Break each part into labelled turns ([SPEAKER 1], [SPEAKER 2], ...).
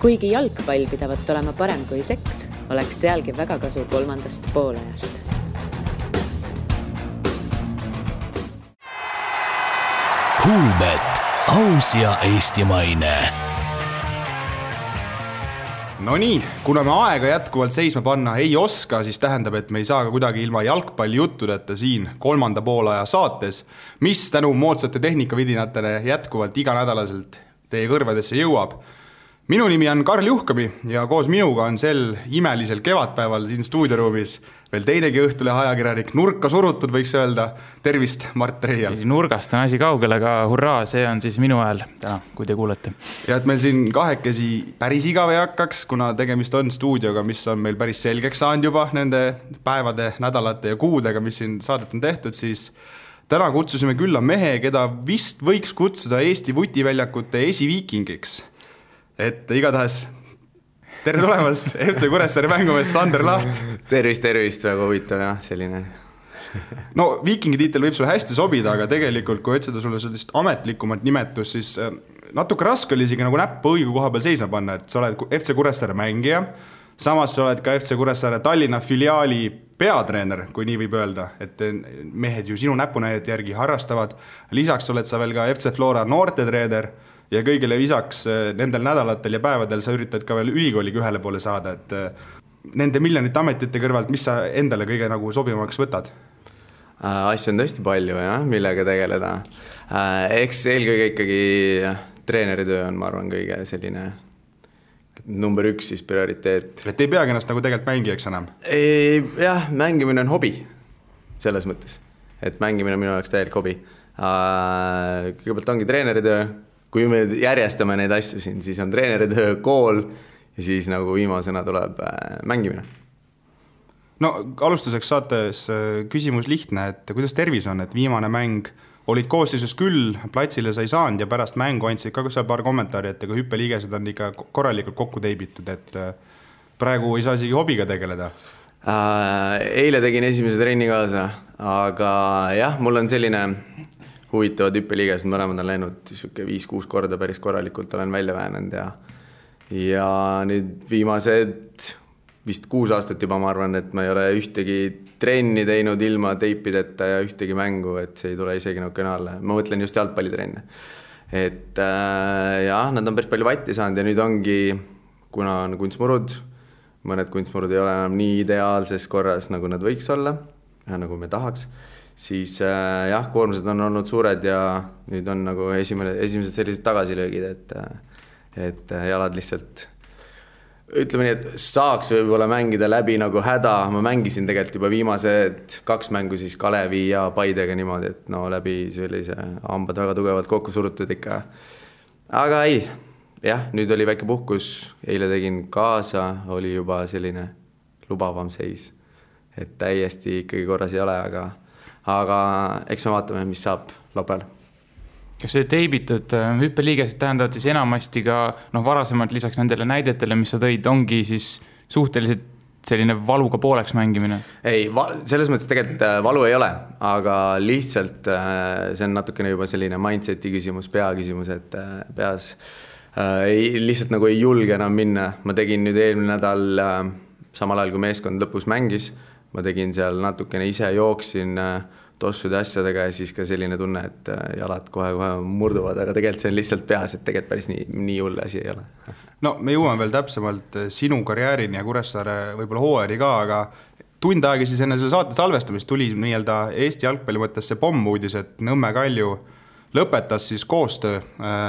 [SPEAKER 1] Kuigi jalgpall pidavat olema parem kui seks, oleks sealgi väga kasu 3. poolajast.
[SPEAKER 2] Kuulbet, aus ja eestimaine.
[SPEAKER 3] No nii, kuna me aega jätkuvalt seisma panna ei oska, siis tähendab, et me ei saa ka kuidagi ilma jalgpalli juttudeta siin 3. poolaja saates, mis tänu moodsate tehnikavidinatele jätkuvalt iganädalaselt teie kõrvadesse jõuab. Minu nimi on Karl Juhkami ja koos minuga on sel imelisel kevadpäeval siin stuudioruumis veel teinegi õhtulehe ajakirjanik, nurka surutud võiks öelda. Tervist, Mart Reial.
[SPEAKER 4] Nurgast on asi kaugel, aga hurraa, see on siis minu hääl täna, kui te kuulete.
[SPEAKER 3] Ja et meil siin kahekesi päris igav ei hakkaks, kuna tegemist on stuudioga, mis on meil päris selgeks saanud juba nende päevade, nädalate ja kuudega, mis siin saadet on tehtud, siis täna kutsusime külla mehe, keda vist võiks kutsuda Eesti vutiväljakute esiviikingiks. Et igatahes tere tulemast FC Kuressaare mängumees Sander Laht.
[SPEAKER 5] Tervist, väga huvitav ja selline.
[SPEAKER 3] No viikingi tiitel võib sulle hästi sobida, aga tegelikult kui otsida sulle sellist ametlikumat nimetus, siis natuke raske oli isegi nagu näppu õige koha peal seisma panna, et sa oled FC Kuressaare mängija, samas sa oled ka FC Kuressaare Tallinna filiaali peatreener, kui nii võib öelda, et mehed ju sinu näpunäidete järgi harrastavad. Lisaks oled sa veel ka FC Flora noortetreener ja kõigile lisaks nendel nädalatel ja päevadel sa üritad ka veel ülikooliga ühele poole saada, et nende miljonite ametite kõrvalt, mis sa endale kõige nagu sobivamaks võtad?
[SPEAKER 5] Asju on tõesti palju, jah, millega tegeleda. Eks eelkõige ikkagi treeneritöö on, ma arvan, kõige selline number 1 siis prioriteet.
[SPEAKER 3] Et ei peagi ennast nagu tegelikult mängijaks enam?
[SPEAKER 5] Jah, mängimine on hobi selles mõttes, et mängimine on minu jaoks täielik hobi. Kõigepealt ongi treeneritöö. Kui me järjestame neid asju siin, siis on treeneritöö, kool ja siis nagu viimasena tuleb mängimine.
[SPEAKER 3] No alustuseks saates küsimus lihtne, et kuidas tervis on, et viimane mäng olid koosseisus küll, platsile sa ei saanud ja pärast mängu andsid ka seal paar kommentaari, et hüppeliigesed on ikka korralikult kokku teibitud, et praegu ei saa isegi hobiga tegeleda.
[SPEAKER 5] Eile tegin esimese trenni kaasa, aga jah, mul on selline huvitavad hüppeliigesed, mõlemad on läinud 5-6 korda päris korralikult olen välja väänend ja nüüd viimased vist 6 aastat juba ma arvan, et ma ei ole ühtegi trenni teinud ilma teipideta ja ühtegi mängu, et see ei tule isegi nagu kõnalle. Ma mõtlen just jalgpallitrenne. Et jah, nad on päris palju vatti saanud ja nüüd ongi, kuna on kunstmurud, mõned kunstmurud ei ole enam nii ideaalses korras, nagu nad võiks olla, nagu me tahaks, siis jah, koormused on olnud suured ja nüüd on nagu esimesed sellised tagasilöögid, et jalad lihtsalt, ütleme nii, et saaks võib-olla mängida läbi nagu häda. Ma mängisin tegelikult juba viimased 2 mängu siis Kalevi ja Paidega niimoodi, et no läbi sellise hambad väga tugevalt kokku surutud ikka. Aga ei, jah, nüüd oli väike puhkus, eile tegin kaasa, oli juba selline lubavam seis, et täiesti ikkagi korras ei ole, aga eks me vaatame, mis saab lopel.
[SPEAKER 4] Kas see teibitud hüppeliigesed tähendavad siis enamasti ka varasemalt lisaks nendele näidetele, mis sa tõid, ongi siis suhteliselt selline valuga pooleks mängimine? Ei,
[SPEAKER 5] selles mõttes tegelikult valu ei ole, aga lihtsalt see on natukene juba selline mindseti küsimus, pea küsimus, et peas lihtsalt nagu ei julge enam minna. Ma tegin nüüd eelmine nädal samal ajal, kui meeskond lõpus mängis, ma tegin seal natukene ise jooksin tossude asjadega ja siis ka selline tunne, et jalad kohe murduvad, aga tegelikult see on lihtsalt peas, et tegelikult päris nii hull asi ei ole.
[SPEAKER 3] No me jõuame veel täpsemalt sinu karjäärini ja Kuressaare võib-olla hooajani ka, aga tund aega siis enne selle saate salvestamist tuli nii-öelda Eesti jalgpalli mõttes see pommuudis, et Nõmme Kalju lõpetas siis koostöö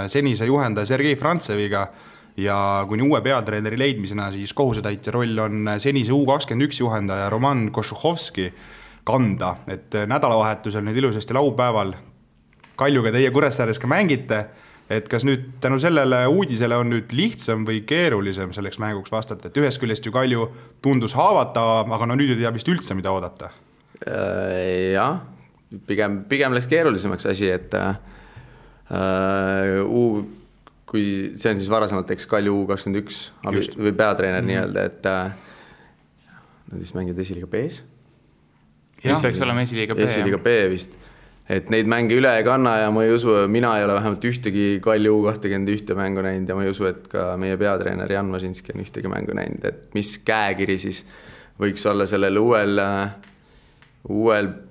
[SPEAKER 3] senise juhendaja Sergei Frantseviga ja kuni uue peatreeneri leidmisena siis kohusetäitja roll on senise U21 juhendaja Roman Košuhovski kanda, et nädalavahetusel nüüd ilusasti laupäeval Kaljuga teie Kuressaares ka mängite, et kas nüüd tänu sellele uudisele on nüüd lihtsam või keerulisem selleks mänguks vastata, et ühest küljest ju Kalju tundus haavatav, aga no nüüd ei tea vist üldse, mida oodata.
[SPEAKER 5] Jah, pigem läks keerulisemaks asi, et kui see on siis varasemalt Kalju U21 või peatreener nii-öelda, et nad vist mängid esiliiga B-s.
[SPEAKER 4] Mis peaks olema esiliiga B?
[SPEAKER 5] Esiliiga B vist. et neid mänge üle ei kanna ja ma ei usu, mina ei ole vähemalt ühtegi Kalju U21 mängu näinud ja ma ei usu, et ka meie peatreener Jan Masinski on ühtegi mängu näinud, et mis käekiri siis võiks olla sellel uuel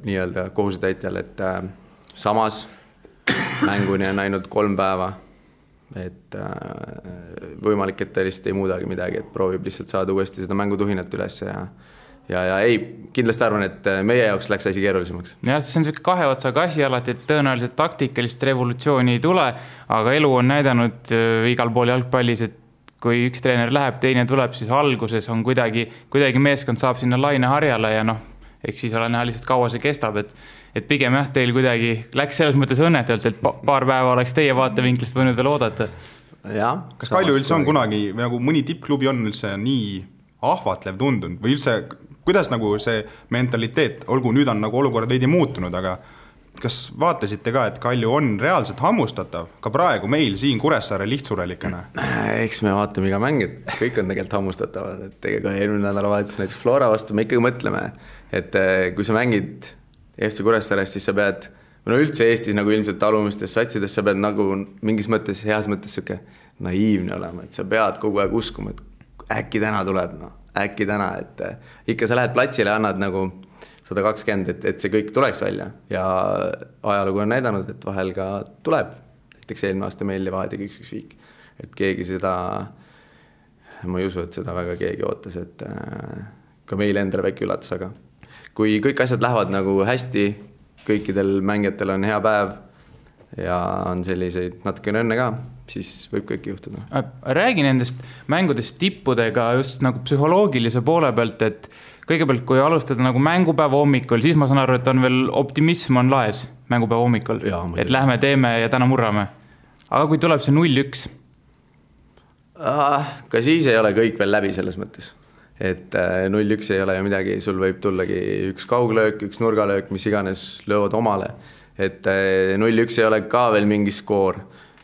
[SPEAKER 5] nii-öelda kohusetäitjal, et samas mänguni on ainult 3 päeva, et võimalik, et ta lihtsalt ei muudagi midagi, et proovib lihtsalt saada uuesti seda mängutuhinat üles ja ei, kindlasti arvan, et meie jaoks läks asi keerulisemaks.
[SPEAKER 4] Ja see on selline 2 otsaga asi alati, et tõenäoliselt taktikalist revolutsiooni ei tule, aga elu on näidanud igal pool jalgpallis, et kui üks treener läheb, teine tuleb, siis alguses on kuidagi meeskond saab sinna laineharjale ja eks siis ole näha lihtsalt kaua see kestab, et pigem jah, teil kuidagi läks selles mõttes õnnetult, et paar päeva oleks teie vaatevinklist võinud veel oodata.
[SPEAKER 5] Ja,
[SPEAKER 3] kas Kalju üldse on kunagi, nagu mõni tippklubi on üldse nii ahvatlev tundunud või üldse, kuidas nagu see mentaliteet, olgu nüüd on nagu olukord veidi muutunud, aga kas vaatasite ka, et Kalju on reaalselt hammustatav ka praegu meil siin Kuressaare lihtsurelikena?
[SPEAKER 5] Eks me vaatame iga mäng, et kõik on tegelikult hammustatavad, et ega eelmine nädalavahetus näiteks Flora vastu me ikkagi mõtleme, et kui sa mängid FC Kuressaarest, siis sa pead, üldse Eestis nagu ilmselt alumistes satsides, sa pead nagu mingis mõttes, heas mõttes siuke naiivne olema, et sa pead kogu aeg uskuma, et äkki täna tuleb, äkki täna, et ikka sa lähed platsile ja annad nagu 120, et see kõik tuleks välja ja ajalugu on näidanud, et vahel ka tuleb. Näiteks eelmine aasta meil Levadiaga 1-1 viik, et keegi seda, ma ei usu, et seda väga keegi ootas, et ka meil endale väike üllatus, aga kui kõik asjad lähevad nagu hästi, kõikidel mängijatel on hea päev ja on selliseid natukene õnne ka, siis võib kõik juhtuda.
[SPEAKER 4] Räägi nendest mängudest tippudega just nagu psühholoogilise poole pealt, et kõigepealt, kui alustada nagu mängupäeva hommikul, siis ma saan aru, et on veel optimism on laes mängupäeva hommikul, et lähme teeme ja täna murrame. Aga kui tuleb see 0-1?
[SPEAKER 5] Ka siis ei ole kõik veel läbi selles mõttes. Et 0-1 ei ole ju midagi, sul võib tullagi üks kauglöök, üks nurgalöök, mis iganes löövad omale. Et 0-1 ei ole ka veel mingi skoor.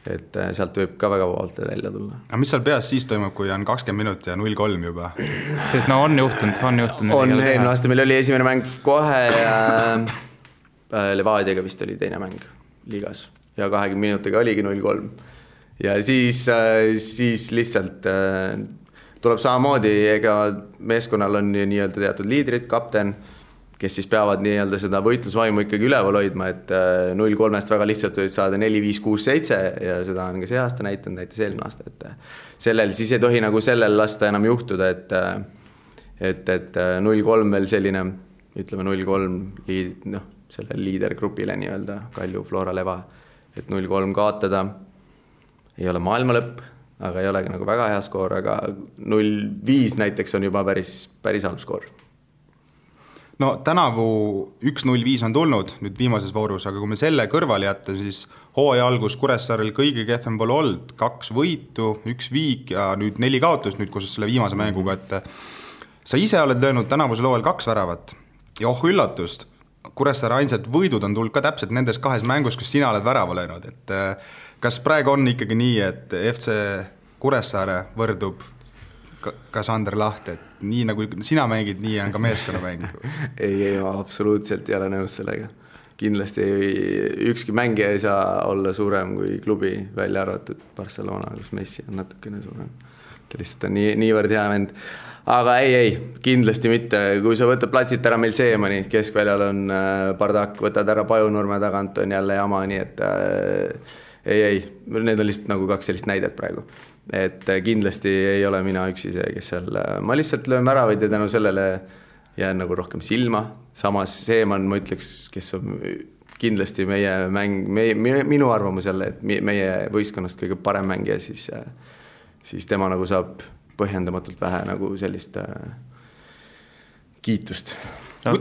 [SPEAKER 5] Et sealt võib ka väga vabalt välja tulla.
[SPEAKER 3] Aga mis seal peas siis toimub, kui on 20 minutit ja 0-3 juba?
[SPEAKER 4] Sest on juhtunud.
[SPEAKER 5] Eelmine aasta meil oli esimene mäng kohe ja Levadiaga vist oli teine mäng liigas ja 20 minutiga oligi 0-3. Ja siis lihtsalt tuleb samamoodi, ega meeskonnal on nii-öelda teatud liidrid, kapten, kes siis peavad nii-öelda seda võitlusvaimu ikkagi üleval hoidma, et 0-3-st väga lihtsalt võid saada 4-5-6-7 ja seda on ka see aasta näitanud, näitas eelmine aasta, et sellel siis ei tohi nagu sellel lasta enam juhtuda, et 0-3 veel selline, ütleme 0-3 selle liidergrupile nii-öelda Kalju, Flora, Leva, et 0-3 kaotada ei ole maailma lõpp, aga ei ole nagu väga hea skoor, aga 0-5 näiteks on juba päris halb skoor.
[SPEAKER 3] No tänavu 1-0-5 on tulnud nüüd viimases voorus, aga kui me selle kõrvale jätta, siis hooaja algus Kuressaarel kõige kehvem pole olnud, 2 võitu, 1 viik ja nüüd 4 kaotust nüüd, kus selle viimase mänguga, et sa ise oled löönud tänavusel hooajal 2 väravat ja üllatust, Kuressaare ainsad võidud on tulnud ka täpselt nendes 2 mängus, kus sina oled värava löönud, et kas praegu on ikkagi nii, et FC Kuressaare võrdub ka Sander Laht, et nii nagu sina mängid, nii on ka meeskonna mäng?
[SPEAKER 5] ei, ma absoluutselt ei ole nõus sellega. Kindlasti ükski mängija ei saa olla suurem kui klubi, välja arvatud Barcelona, kus Messi on natukene suurem. Ta lihtsalt on niivõrd hea vend. Aga ei, kindlasti mitte. Kui sa võtad platsit ära meil Seemani, keskväljal on Bardak, võtad ära Pajunurme tagant, on jälle jama, nii et ei, need on lihtsalt nagu 2 sellist näidet praegu. Et kindlasti ei ole mina üksi see, kes seal, ma lihtsalt löön väravaid ja tänu sellele jään nagu rohkem silma. Samas Seeman, ma ütleks, kes on kindlasti meie mäng, minu arvamus jälle, et meie võistkonnast kõige parem mängija, siis tema nagu saab põhjendamatult vähe nagu sellist kiitust.
[SPEAKER 4] No,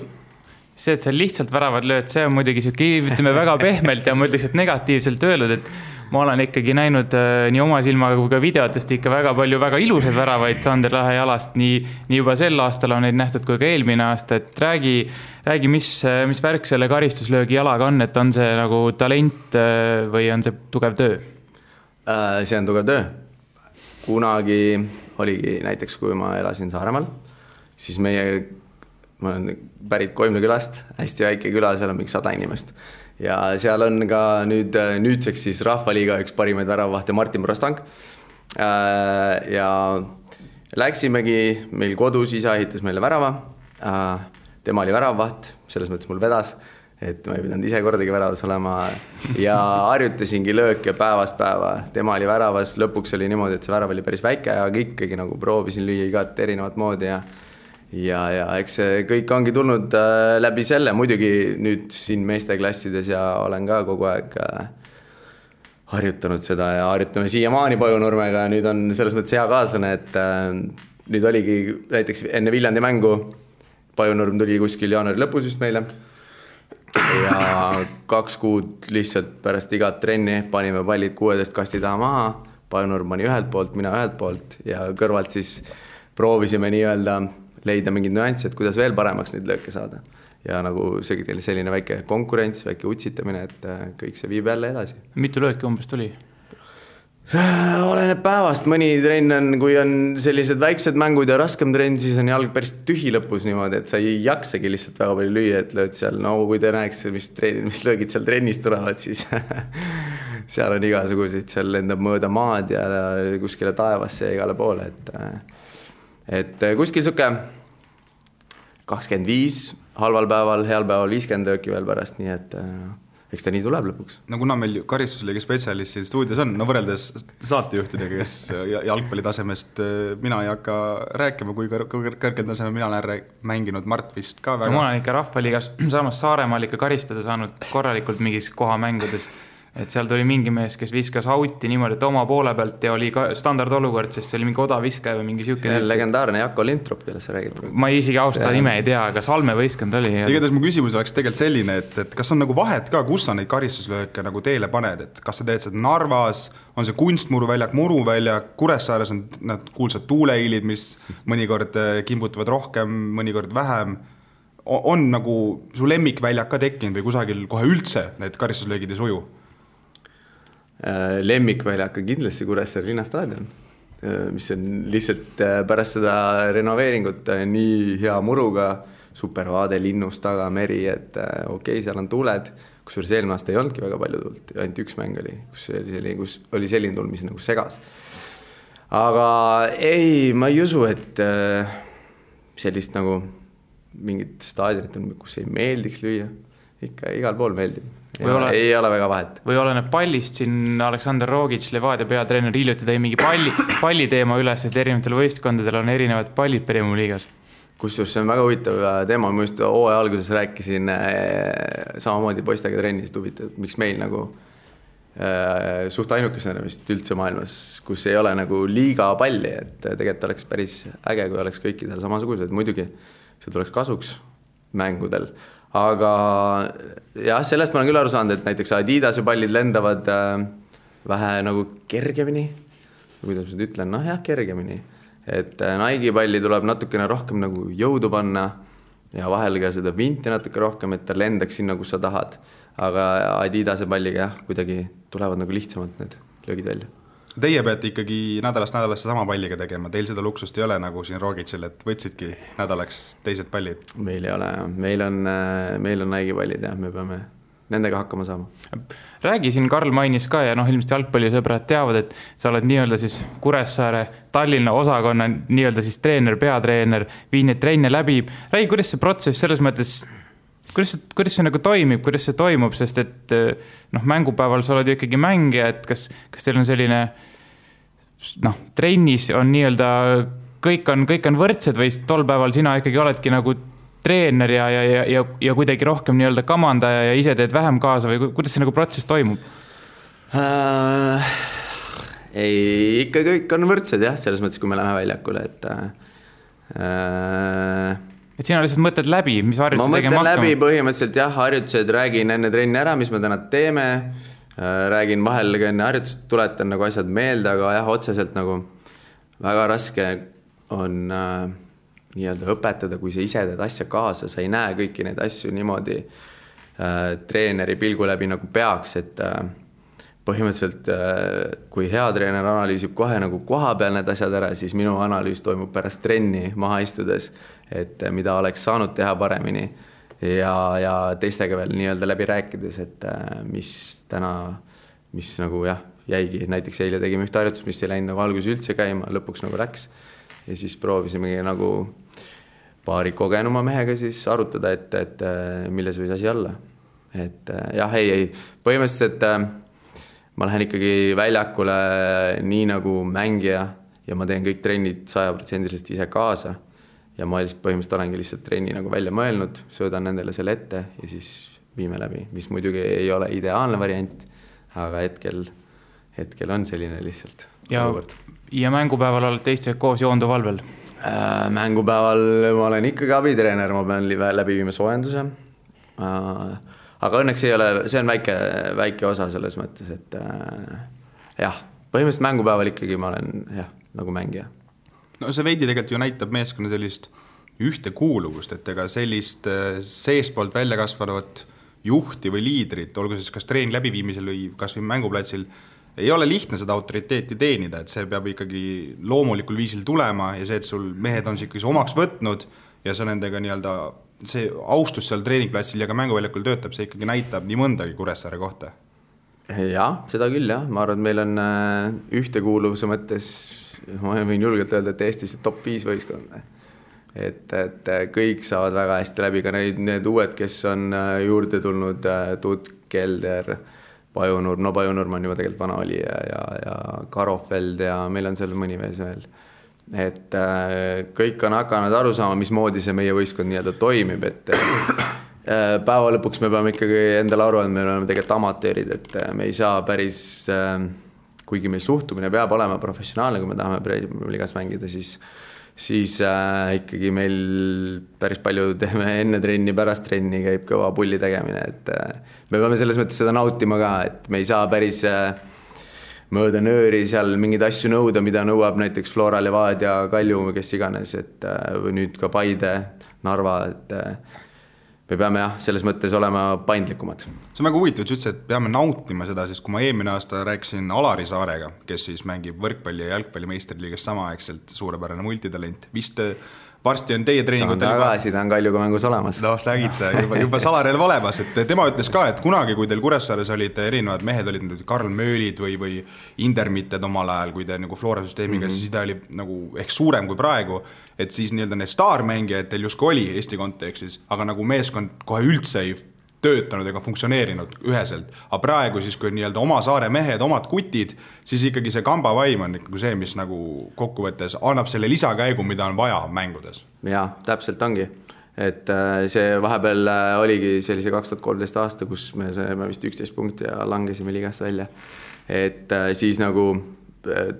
[SPEAKER 4] see, et sa lihtsalt väravad lööd, see on muidugi ütleme väga pehmelt ja ma ütleks, et negatiivselt öeldud, et ma olen ikkagi näinud nii oma silmaga kui ka videotest ikka väga palju väga ilusaid väravaid Sander Lahe jalast, nii juba sel aastal on neid nähtud kui ka eelmine aasta, et räägi mis värk selle karistuslöögi jalaga on, et on see nagu talent või on see tugev töö?
[SPEAKER 5] See on tugev töö. Kunagi oligi näiteks, kui ma elasin Saaremaal, siis ma olen pärit Koimla külast, hästi väike küla, seal on mingi 100 inimest. ja seal on ka nüüdseks siis Rahvaliiga üks parimaid väravavahte Martin Prostang. Ja läksimegi meil kodus, isa ehitas meile värava. Tema oli väravvaht, selles mõttes mul vedas, et ma ei pidanud ise kordagi väravas olema ja harjutasingi lööke päevast päeva. Tema oli väravas, lõpuks oli niimoodi, et see värav oli päris väike, aga ikkagi nagu proovisin lüüa igat erinevat moodi ja eks see kõik ongi tulnud läbi selle. Muidugi nüüd siin meesteklassides ja olen ka kogu aeg harjutanud seda ja harjutame siiamaani Pajunurmega. Nüüd on selles mõttes hea kaaslane, et nüüd oligi näiteks enne Viljandi mängu Pajunurm tuli kuskil jaanuari lõpus just meile ja 2 kuud lihtsalt pärast igat trenni panime pallid 16 kasti taha maha. Pajunurm pani ühelt poolt, mina ühelt poolt ja kõrvalt siis proovisime nii-öelda leida mingid nüanssi, et kuidas veel paremaks neid lööke saada. Ja nagu selline väike konkurents, väike utsitamine, et kõik see viib jälle edasi.
[SPEAKER 4] Mitu lööki umbes tuli?
[SPEAKER 5] Oleneb päevast, mõni trenn on, kui on sellised väiksed mängud ja raskem trenn, siis on jalg päris tühi lõpus niimoodi, et sa ei jaksagi lihtsalt väga palju lüüa, et lööd seal, no kui te näeks, mis löögid seal trennis tulevad, siis seal on igasuguseid, seal lendab mööda maad ja kuskile taevasse ja igale poole, et kuskil suke 25, halval päeval, heal päeval 50 lööki veel pärast, nii et eks ta nii tuleb lõpuks.
[SPEAKER 3] No kuna meil karistusliiga spetsialist siin stuudios on, no võrreldes saatejuhtidega, kes jalgpallitasemest mina ei hakka rääkima, kui kõrgel taseme mina olen mänginud Mart vist ka väga.
[SPEAKER 4] No, ma olen ikka Rahvaliigas samas Saaremaal ikka karistada saanud korralikult mingis kohamängudes. Et seal tuli mingi mees, kes viskas auti niimoodi, et oma poole pealt ja oli ka standardolukord, sest see oli mingi odaviskaja või mingi siuke.
[SPEAKER 5] See on legendaarne Jako Lintrop, kellest sa räägid.
[SPEAKER 4] Ma isegi austa nime ei tea, aga Salme võistkond oli.
[SPEAKER 3] Igatahes mu küsimus oleks tegelikult selline, et kas on nagu vahet ka, kus sa neid karistuslööke nagu teele paned, et kas sa teed seda Narvas, on see kunstmuruväljak, muruväljak, Kuressaares on need kuulsad tuuleilid, mis mõnikord kimbutavad rohkem, mõnikord vähem. On nagu su lemmikväljak ka tekkinud või kusagil kohe üldse need karistuslöögid ei suju?
[SPEAKER 5] Lemmikväljak on kindlasti Kuressaare linnastaadion, mis on lihtsalt pärast seda renoveeringut nii hea muruga, supervaade linnust taga, meri, et okei, seal on tuuled, kusjuures eelmine aasta ei olnudki väga palju tuult, ainult üks mäng oli, kus oli selline tuul, mis nagu segas. Aga ei, ma ei usu, et sellist nagu mingit staadionit on, kus ei meeldiks lüüa, ikka igal pool meeldib. Ei ole väga vahet.
[SPEAKER 4] Või oleneb pallist, siin Aleksander Rogic, Levadia peatreener, hiljuti tõi mingi palli teema üles, et erinevatel võistkondadel on erinevad pallid Premium liigas.
[SPEAKER 5] Kusjuures see on väga huvitav teema, ma just hooaja alguses rääkisin samamoodi poistega trennis, huvitav, miks meil nagu suht ainukesena vist üldse maailmas, kus ei ole nagu liiga palli, et tegelikult oleks päris äge, kui oleks kõikidel samasugused, muidugi see tuleks kasuks mängudel. Aga jah, sellest ma olen küll aru saanud, et näiteks Adidase pallid lendavad vähe nagu kergemini, kuidas ma seda ütlen, noh jah, kergemini, et Nike palli tuleb natukene rohkem nagu jõudu panna ja vahel ka seda vinti natuke rohkem, et ta lendaks sinna, kus sa tahad, aga Adidase palliga jah, kuidagi tulevad nagu lihtsamalt need löögid välja.
[SPEAKER 3] Teie peate ikkagi nädalast nädalasse sama palliga tegema, teil seda luksust ei ole nagu siin Rogicil, et võtsidki nädalaks teised pallid?
[SPEAKER 5] Meil ei ole, meil on Nike pallid ja me peame nendega hakkama saama.
[SPEAKER 4] Räägi siin, Karl mainis ka ja ilmselt jalgpallisõbrad teavad, et sa oled nii-öelda siis Kuressaare Tallinna osakonna nii-öelda siis treener, peatreener, viid neid trenne läbi. Räägi, kuidas see protsess selles mõttes, kuidas see nagu toimib, kuidas see toimub, sest et mängupäeval sa oled ju ikkagi mängija, et kas teil on selline trennis on nii-öelda kõik on võrdsed või tol päeval sina ikkagi oledki nagu treener ja kuidagi rohkem nii-öelda kamandaja ja ise teed vähem kaasa või kuidas see nagu protsess toimub?
[SPEAKER 5] Ei, ikka kõik on võrdsed jah, selles mõttes, kui me läheme väljakule,
[SPEAKER 4] et sina lihtsalt mõtled läbi, mis harjutused tegema hakkama?
[SPEAKER 5] Ma mõtlen läbi põhimõtteliselt jah, harjutused, räägin enne trenni ära, mis me täna teeme, räägin vahel enne harjutust, tuletan nagu asjad meelde, aga jah, otseselt nagu väga raske on nii-öelda õpetada, kui sa ise teed asja kaasa, sa ei näe kõiki neid asju niimoodi treeneri pilgu läbi nagu peaks, et põhimõtteliselt kui hea treener analüüsib kohe nagu koha peal need asjad ära, siis minu analüüs toimub pärast trenni maha istudes, et mida oleks saanud teha paremini ja teistega veel nii-öelda läbi rääkides, et mis nagu jah, jäigi, näiteks eile tegime ühte harjutust, mis ei läinud nagu alguses üldse käima, lõpuks nagu läks ja siis proovisimegi nagu paari kogenuma mehega siis arutada, et milles võis asi olla. Et jah, ei, põhimõtteliselt ma lähen ikkagi väljakule nii nagu mängija ja ma teen kõik trennid 100% ise kaasa ja ma põhimõtteliselt olengi lihtsalt trenni nagu välja mõelnud, söödan nendele selle ette ja siis viime läbi, mis muidugi ei ole ideaalne variant, aga hetkel on selline lihtsalt olukord.
[SPEAKER 4] Ja mängupäeval olete teistega koos Joondu valvel?
[SPEAKER 5] Mängupäeval ma olen ikkagi abitreener, ma pean läbi viima soojenduse. Aga õnneks ei ole, see on väike osa selles mõttes, et jah, põhimõtteliselt mängupäeval ikkagi ma olen nagu mängija.
[SPEAKER 3] No see veidi tegelikult ju näitab meeskonna sellist ühtekuuluvust, et ega sellist seespoolt välja kasvavat juhti või liidrit, olgu siis kas treeni läbiviimisel või kas või mänguplatsil, ei ole lihtne seda autoriteeti teenida, et see peab ikkagi loomulikul viisil tulema ja see, et sul mehed on ikkagi omaks võtnud ja sa nendega nii-öelda see austus seal treeningplatsil ja ka mänguväljakul töötab, see ikkagi näitab nii mõndagi Kuressaare kohta.
[SPEAKER 5] Jah, seda küll jah. Ma arvan, et meil on ühtekuuluvuse mõttes, ma võin julgelt öelda, et Eestis top 5 võistkond. Et kõik saavad väga hästi läbi, ka need uued, kes on juurde tulnud, Tuut, Kelder, Pajunur, no Pajunurm on juba tegelikult vana oli ja Karofeld ja meil on seal mõni mees veel. Et kõik on hakanud aru saama, mismoodi see meie võistkond nii-öelda toimib, et päeva lõpuks me peame ikkagi endale aru, et me oleme tegelikult amatöörid, et me ei saa päris, kuigi meil suhtumine peab olema professionaalne, kui me tahame ligas mängida, siis ikkagi meil päris palju teeme enne trenni, pärast trenni käib kõva pulli tegemine, et me peame selles mõttes seda nautima ka, et me ei saa päris mööda nööri seal mingeid asju nõuda, mida nõuab näiteks Flora, Levadia, Kalju, kes iganes, et või nüüd ka Paide, Narva, et me peame selles mõttes olema paindlikumad.
[SPEAKER 3] See on väga huvitav, et peame nautima seda, sest kui ma eelmine aasta rääkisin Alari Saarega, kes siis mängib võrkpalli ja jalgpalli meistriliigas samaaegselt, suurepärane multitalent, vist varsti on teie treeningutel
[SPEAKER 5] ta on Kaljuga mängus olemas.
[SPEAKER 3] No, räägid sa juba salarelv olemas, et tema ütles ka, et kunagi, kui teil Kuressaares olid erinevad mehed, olid nüüd Karl Möölid või Indermitted omal ajal, kui te nagu Flora süsteemiga, siis ta oli nagu ehk suurem kui praegu, et siis nii-öelda need staarmängijad teil justkui oli Eesti kontekstis, aga nagu meeskond kohe üldse ei töötanud ega funktsioneerinud üheselt. Aga praegu siis, kui nii-öelda oma saare mehed, omad kutid, siis ikkagi see kamba vaim on ikkagi see, mis nagu kokkuvõttes annab selle lisakäigu, mida on vaja mängudes.
[SPEAKER 5] Jaa, täpselt ongi. Et see vahepeal oligi sellise 2013 aasta, kus me saime vist 11 punkti ja langesime ligast välja. Et siis nagu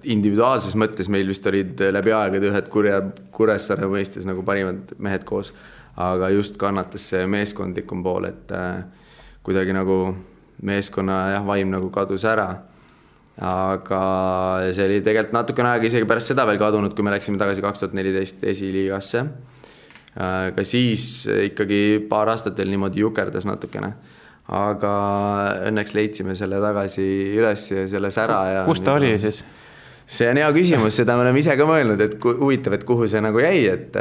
[SPEAKER 5] individuaalses mõttes meil vist olid läbi aegade ühed Kuressaare mõistes nagu parimad mehed koos. Aga just kannatas see meeskondlikum pool, et kuidagi nagu meeskonna vaim nagu kadus ära. Aga see oli tegelikult natukene aega isegi pärast seda veel kadunud, kui me läksime tagasi 2014 esiliigasse. Ka siis ikkagi paar aastat veel niimoodi jukerdas natukene. Aga õnneks leidsime selle tagasi üles ja selle sära.
[SPEAKER 4] Kus ta oli siis?
[SPEAKER 5] See on hea küsimus, seda me oleme ise ka mõelnud, et huvitav, et kuhu see nagu jäi, et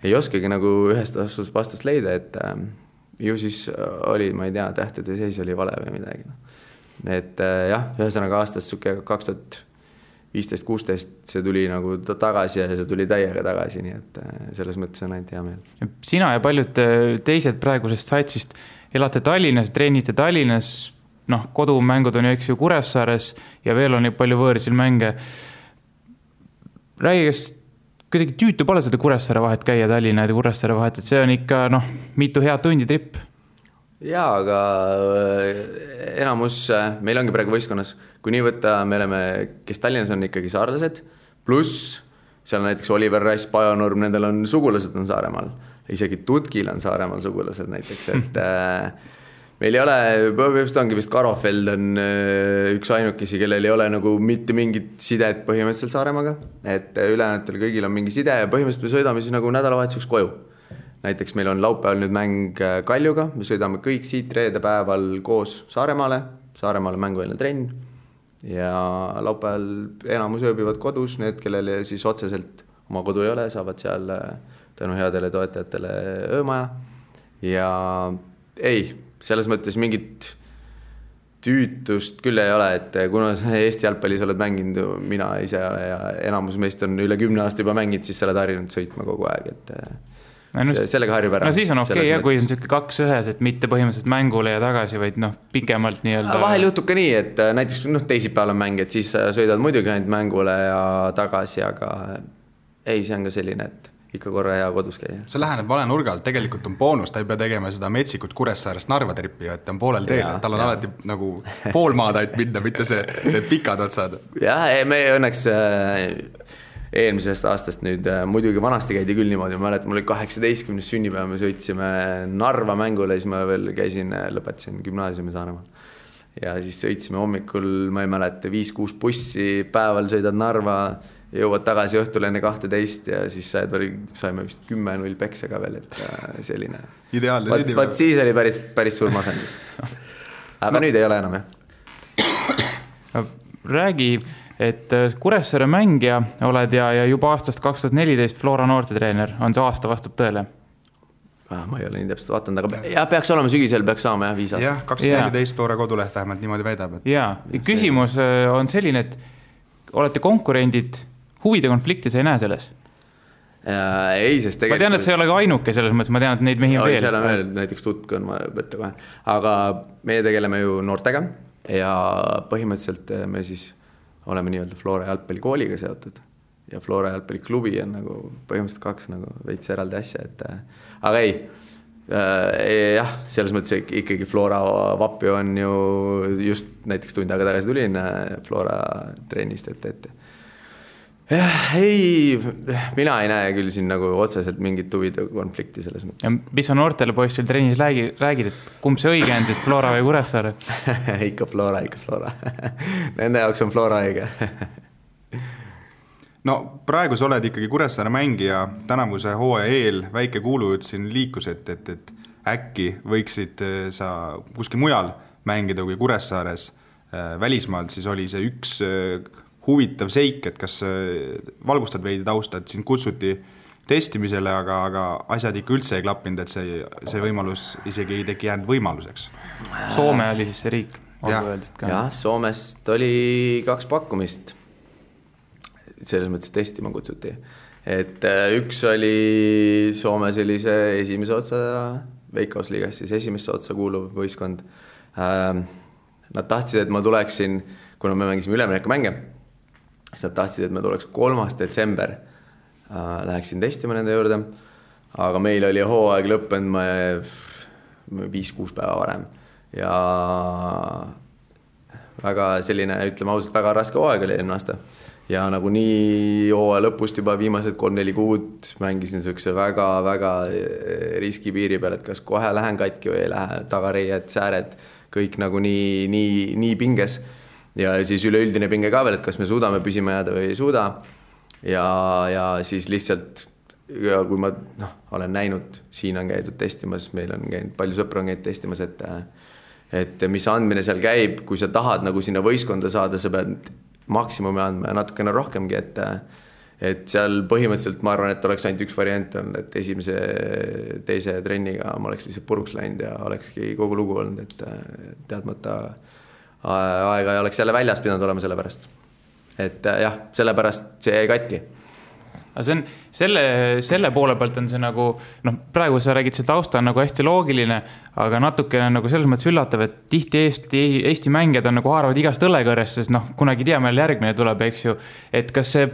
[SPEAKER 5] ei oskagi nagu ühest vastust leida, et ju siis oli, ma ei tea, tähtede seis oli vale või midagi. Et jah, ühesõnaga aastast 2015-16 see tuli nagu tagasi ja see tuli täiega tagasi, nii et selles mõttes on ainult hea meel.
[SPEAKER 4] Sina ja paljud teised praegusest saitsist elate Tallinnas, treenite Tallinnas, kodumängud on ju eks ju Kuressaares ja veel on palju võõrsil mänge. Räägi, kas kuidagi tüütu pole seda Kuressaare vahet käia Tallinna ja Kuressaare vahet, et see on ikka mitu head tundi tripp.
[SPEAKER 5] Jaa, aga enamus, meil ongi praegu võistkonnas, kui nii võtta, me oleme, kes Tallinnas on ikkagi saarlased, pluss seal näiteks Oliver Rass, Pajunurm, nendel on sugulased on Saaremaal, isegi Tutkil on Saaremaal sugulased näiteks, et meil ei ole, põhimõtteliselt ongi vist Karofeld on üks ainukesi, kellel ei ole nagu mitte mingit sidet põhimõtteliselt Saaremaga, et ülejäänutel kõigil on mingi side ja põhimõtteliselt me sõidame siis nagu nädalavahetuseks koju. Näiteks meil on laupäeval nüüd mäng Kaljuga, me sõidame kõik siit reede päeval koos Saaremaale mänguväline trenn ja laupäeval enamus ööbivad kodus, need, kellel siis otseselt oma kodu ei ole, saavad seal tänu headele toetajatele öömaja. ja ei, selles mõttes mingit tüütust küll ei ole, et kuna Eesti jalgpallis oled mänginud mina ise ja enamus meist on üle 10 aasta juba mänginud, siis sa oled harjunud sõitma kogu aeg, et sellega harjub ära.
[SPEAKER 4] No siis on okei, ja kui on siuke 2-1, et mitte põhimõtteliselt mängule ja tagasi, vaid pikemalt nii-öelda.
[SPEAKER 5] Vahel juhtub ka nii, et näiteks teisipäeval on mäng, et siis sõidad muidugi ainult mängule ja tagasi, aga ei, see on ka selline, et ikka korra hea kodus käia.
[SPEAKER 3] See läheneb vale nurgalt, tegelikult on boonus, ta ei pea tegema seda metsikut Kuressaarest Narva trippi, et ta on poolel teel, et tal on alati nagu pool maad ainult minna, mitte see pikad otsad.
[SPEAKER 5] Jah, me õnneks eelmisest aastast nüüd, muidugi vanasti käidi küll niimoodi, ma mäletan, mul oli 18. sünnipäev, me sõitsime Narva mängule, siis ma veel lõpetasin gümnaasiumi Saaremaal. Ja siis sõitsime hommikul, ma ei mäleta, 5-6 bussi, päeval sõidad Narva, jõuad tagasi õhtul enne 12 ja siis saime vist 10-0 peksega veel, et selline.
[SPEAKER 3] Ideaalne
[SPEAKER 5] sünnipäev. Vaat siis oli päris suur masendus. Aga nüüd ei ole enam, jah.
[SPEAKER 4] Räägi, et Kuressaare mängija oled ja juba aastast 2014 Flora noortetreener, on see aasta vastab tõele?
[SPEAKER 5] Ma ei ole nii täpselt vaatanud, aga ja peaks olema sügisel, peaks saama 5 aastat.
[SPEAKER 3] Jah, 2014 Flora koduleht vähemalt niimoodi väidab.
[SPEAKER 4] Jaa, küsimus on selline, et olete konkurendid, huvide konflikti sa ei näe selles?
[SPEAKER 5] Ei, sest tegelikult...
[SPEAKER 4] Ma tean, et sa ei ole ka ainuke selles mõttes, ma tean, et neid mehi on veel.
[SPEAKER 5] Seal on veel, näiteks Tutk on ma võtta kohe. Aga meie tegeleme ju noortega ja põhimõtteliselt me siis oleme nii-öelda Flora jalgpallikooliga seotud. Ja Flora jalgpalliklubi on nagu põhimõtteliselt 2 nagu veits eraldi asja, et... Aga ei, jah, selles mõttes ikkagi Flora vappi on ju just näiteks tund aega tagasi tulin Flora treenist, et ei, mina ei näe küll siin nagu otseselt mingit huvide konflikti selles mõttes.
[SPEAKER 4] Ja mis on noortele poistel treenis räägid, et kumb see õige on, sest Flora või Kuressaare?
[SPEAKER 5] ikka Flora. Nende jaoks on Flora õige.
[SPEAKER 3] No praegu sa oled ikkagi Kuressaare mängija, tänavuse hooaja eel väike kuulujutt siin liikus, et äkki võiksid sa kuskil mujal mängida kui Kuressaares välismaalt, siis oli see üks huvitav seik, et kas valgustad veidi tausta, et sind kutsuti testimisele, aga asjad ikka üldse ei klappinud, et see võimalus isegi ei teki jäänud võimaluseks.
[SPEAKER 4] Soome oli siis see riik.
[SPEAKER 5] Jah, Soomest oli 2 pakkumist. Selles mõttes testima kutsuti. Et üks oli Soome sellise esimese otsa Veikkausliigas, siis esimesse otsa kuuluv võistkond. Nad tahtsid, et ma tuleksin, kuna me mängisime ülemineku mänge, siis nad tahtsid, et ma tuleks 3. detsember. Läheksin testima nende juurde, aga meil oli hooaeg lõppenud 5-6 päeva varem. Ja väga selline, ütleme ausalt, väga raske hooaeg oli eelmine aasta. Ja nagu nii hooaja lõpust juba viimased 3-4 kuud mängisin sellise väga riski piiri peal, et kas kohe lähen katki või ei lähe, tagareied, sääred, kõik nagu nii pinges. Ja siis üleüldine pinge ka veel, et kas me suudame püsima jääda või ei suuda. Ja siis lihtsalt, kui ma olen näinud, siin on käidud testimas, meil on käinud, palju sõpra on käinud testimas, et mis andmine seal käib, kui sa tahad nagu sinna võistkonda saada, sa pead maksimumi andma ja natukene rohkemgi, et seal põhimõtteliselt ma arvan, et oleks ainult üks variant on, et esimese, teise trenniga ma oleks lihtsalt puruks läinud ja olekski kogu lugu olnud, et teadmata aega ei oleks jälle väljas pidanud olema selle pärast. Et jah, selle pärast see jäi katki.
[SPEAKER 4] Aga see on, selle poole pealt on see nagu, praegu sa räägid, see tausta on nagu hästi loogiline, aga natukene nagu selles mõttes üllatav, et tihti Eesti mängijad on nagu haaravad igast õlekõrrest, sest kunagi tea, meil järgmine tuleb, eks ju, et kas see,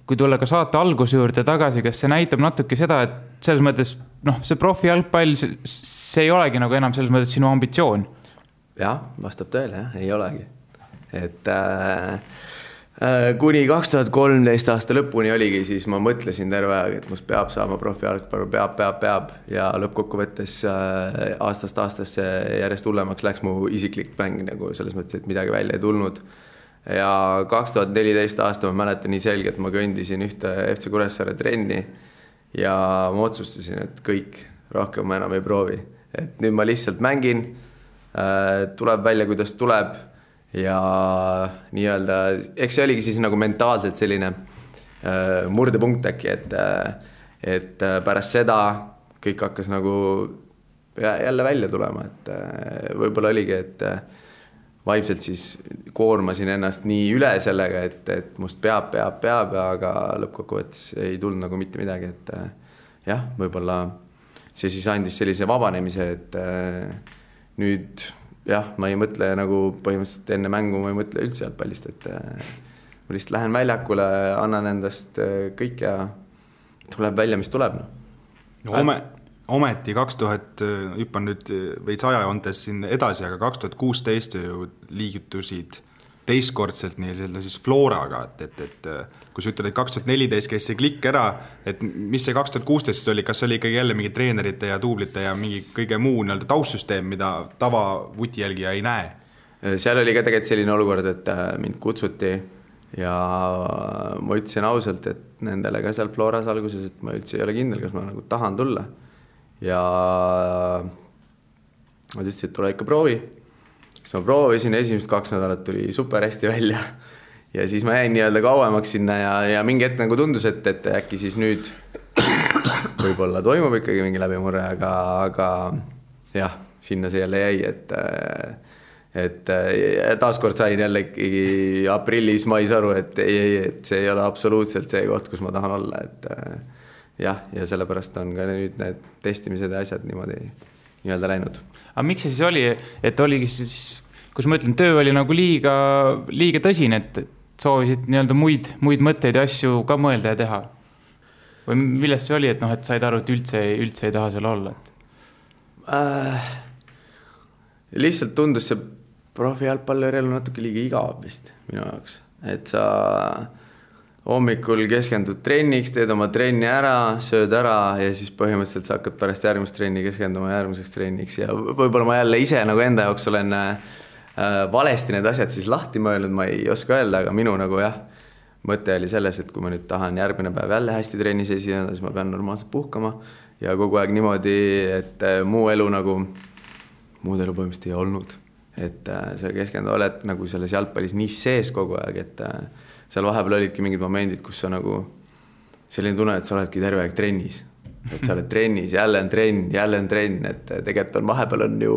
[SPEAKER 4] kui tulla ka saate alguse juurde tagasi, kas see näitab natuke seda, et selles mõttes, see profi jalgpall, see ei olegi nagu enam selles mõttes sinu ambitsioon?
[SPEAKER 5] Jah, vastab tõele, jah, ei olegi. Et kuni 2013 aasta lõpuni oligi, siis ma mõtlesin terve aeg, et must peab saama profi jalgpallu, peab ja lõppkokkuvõttes aastast aastasse järjest hullemaks läks mu isiklik mäng nagu selles mõttes, et midagi välja ei tulnud. Ja 2014 aasta ma mäletan nii selge, et ma kõndisin ühte FC Kuressaare trenni ja ma otsustasin, et kõik, rohkem ma enam ei proovi. Et nüüd ma lihtsalt mängin, tuleb välja, kuidas tuleb ja nii-öelda, eks see oligi siis nagu mentaalselt selline murdepunkt äkki, et pärast seda, kõik hakkas nagu jälle välja tulema, et võib-olla oligi, et vaimselt siis koormasin ennast nii üle sellega, et must peab, aga lõppkokkuvõttes ei tulnud nagu mitte midagi, et jah, võib-olla see siis andis sellise vabanemise, et nüüd jah, ma ei mõtle nagu põhimõtteliselt enne mängu, ma ei mõtle üldse jalgpallist, et ma lihtsalt lähen väljakule, annan endast kõik ja tuleb välja, mis tuleb.
[SPEAKER 3] Ometi 2000, hüppan nüüd veits ajajoontes siin edasi, aga 2016 ju liigutusid teistkordselt nii selle siis Floraga, et kui sa ütled, et 2014 käis see klikk ära, et mis see 2016 oli, kas oli ikkagi jälle mingi treenerite ja duublite ja mingi kõige muu taustsüsteem, mida tava vutijälgija ei näe?
[SPEAKER 5] Seal oli ka tegelikult selline olukord, et mind kutsuti ja ma ütlesin ausalt, et nendele ka seal Floras alguses, et ma üldse ei ole kindel, kas ma nagu tahan tulla. Ja ma ütlesin, et tule ikka proovi. Siis ma proovisin, esimesed 2 nädalat tuli super hästi välja. Ja siis ma jäin nii-öelda kauemaks sinna ja mingi hetk nagu tundus, et äkki siis nüüd võib-olla toimub ikkagi mingi läbimurre, aga jah, sinna see jälle jäi, et taaskord sain jälle ikkagi aprillis, mais aru, et see ei ole absoluutselt see koht, kus ma tahan olla, et jah, ja sellepärast on ka nüüd need testimised ja asjad niimoodi nii-öelda läinud.
[SPEAKER 4] Aga miks see siis oli, et oligi siis, kus ma ütlen, töö oli nagu liiga tõsine, et soovisid nii-öelda muid mõtteid ja asju ka mõelda ja teha? Või millest see oli, et et said aru, et üldse ei taha seal olla?
[SPEAKER 5] Lihtsalt tundus see profijalgpalluri elu natuke liiga igav vist minu jaoks, et sa hommikul keskendud trenniks, teed oma trenni ära, sööd ära ja siis põhimõtteliselt sa hakkad pärast järgmist trenni keskenduma järgmiseks trenniks ja võib-olla ma jälle ise nagu enda jaoks olen valesti need asjad siis lahti mõelnud, ma ei oska öelda, aga minu nagu jah, mõte oli selles, et kui ma nüüd tahan järgmine päev jälle hästi trennis esineda, siis ma pean normaalselt puhkama ja kogu aeg niimoodi, et muud elu põhimõtteliselt ei olnud, et sa keskendu oled nagu selles jalgpallis nii sees kogu aeg, et seal vahepeal olidki mingid momendid, kus sa nagu selline tunne, et sa oledki terve aeg trennis. Et sa oled trennis, jälle on trenn, et tegelikult on vahepeal on ju,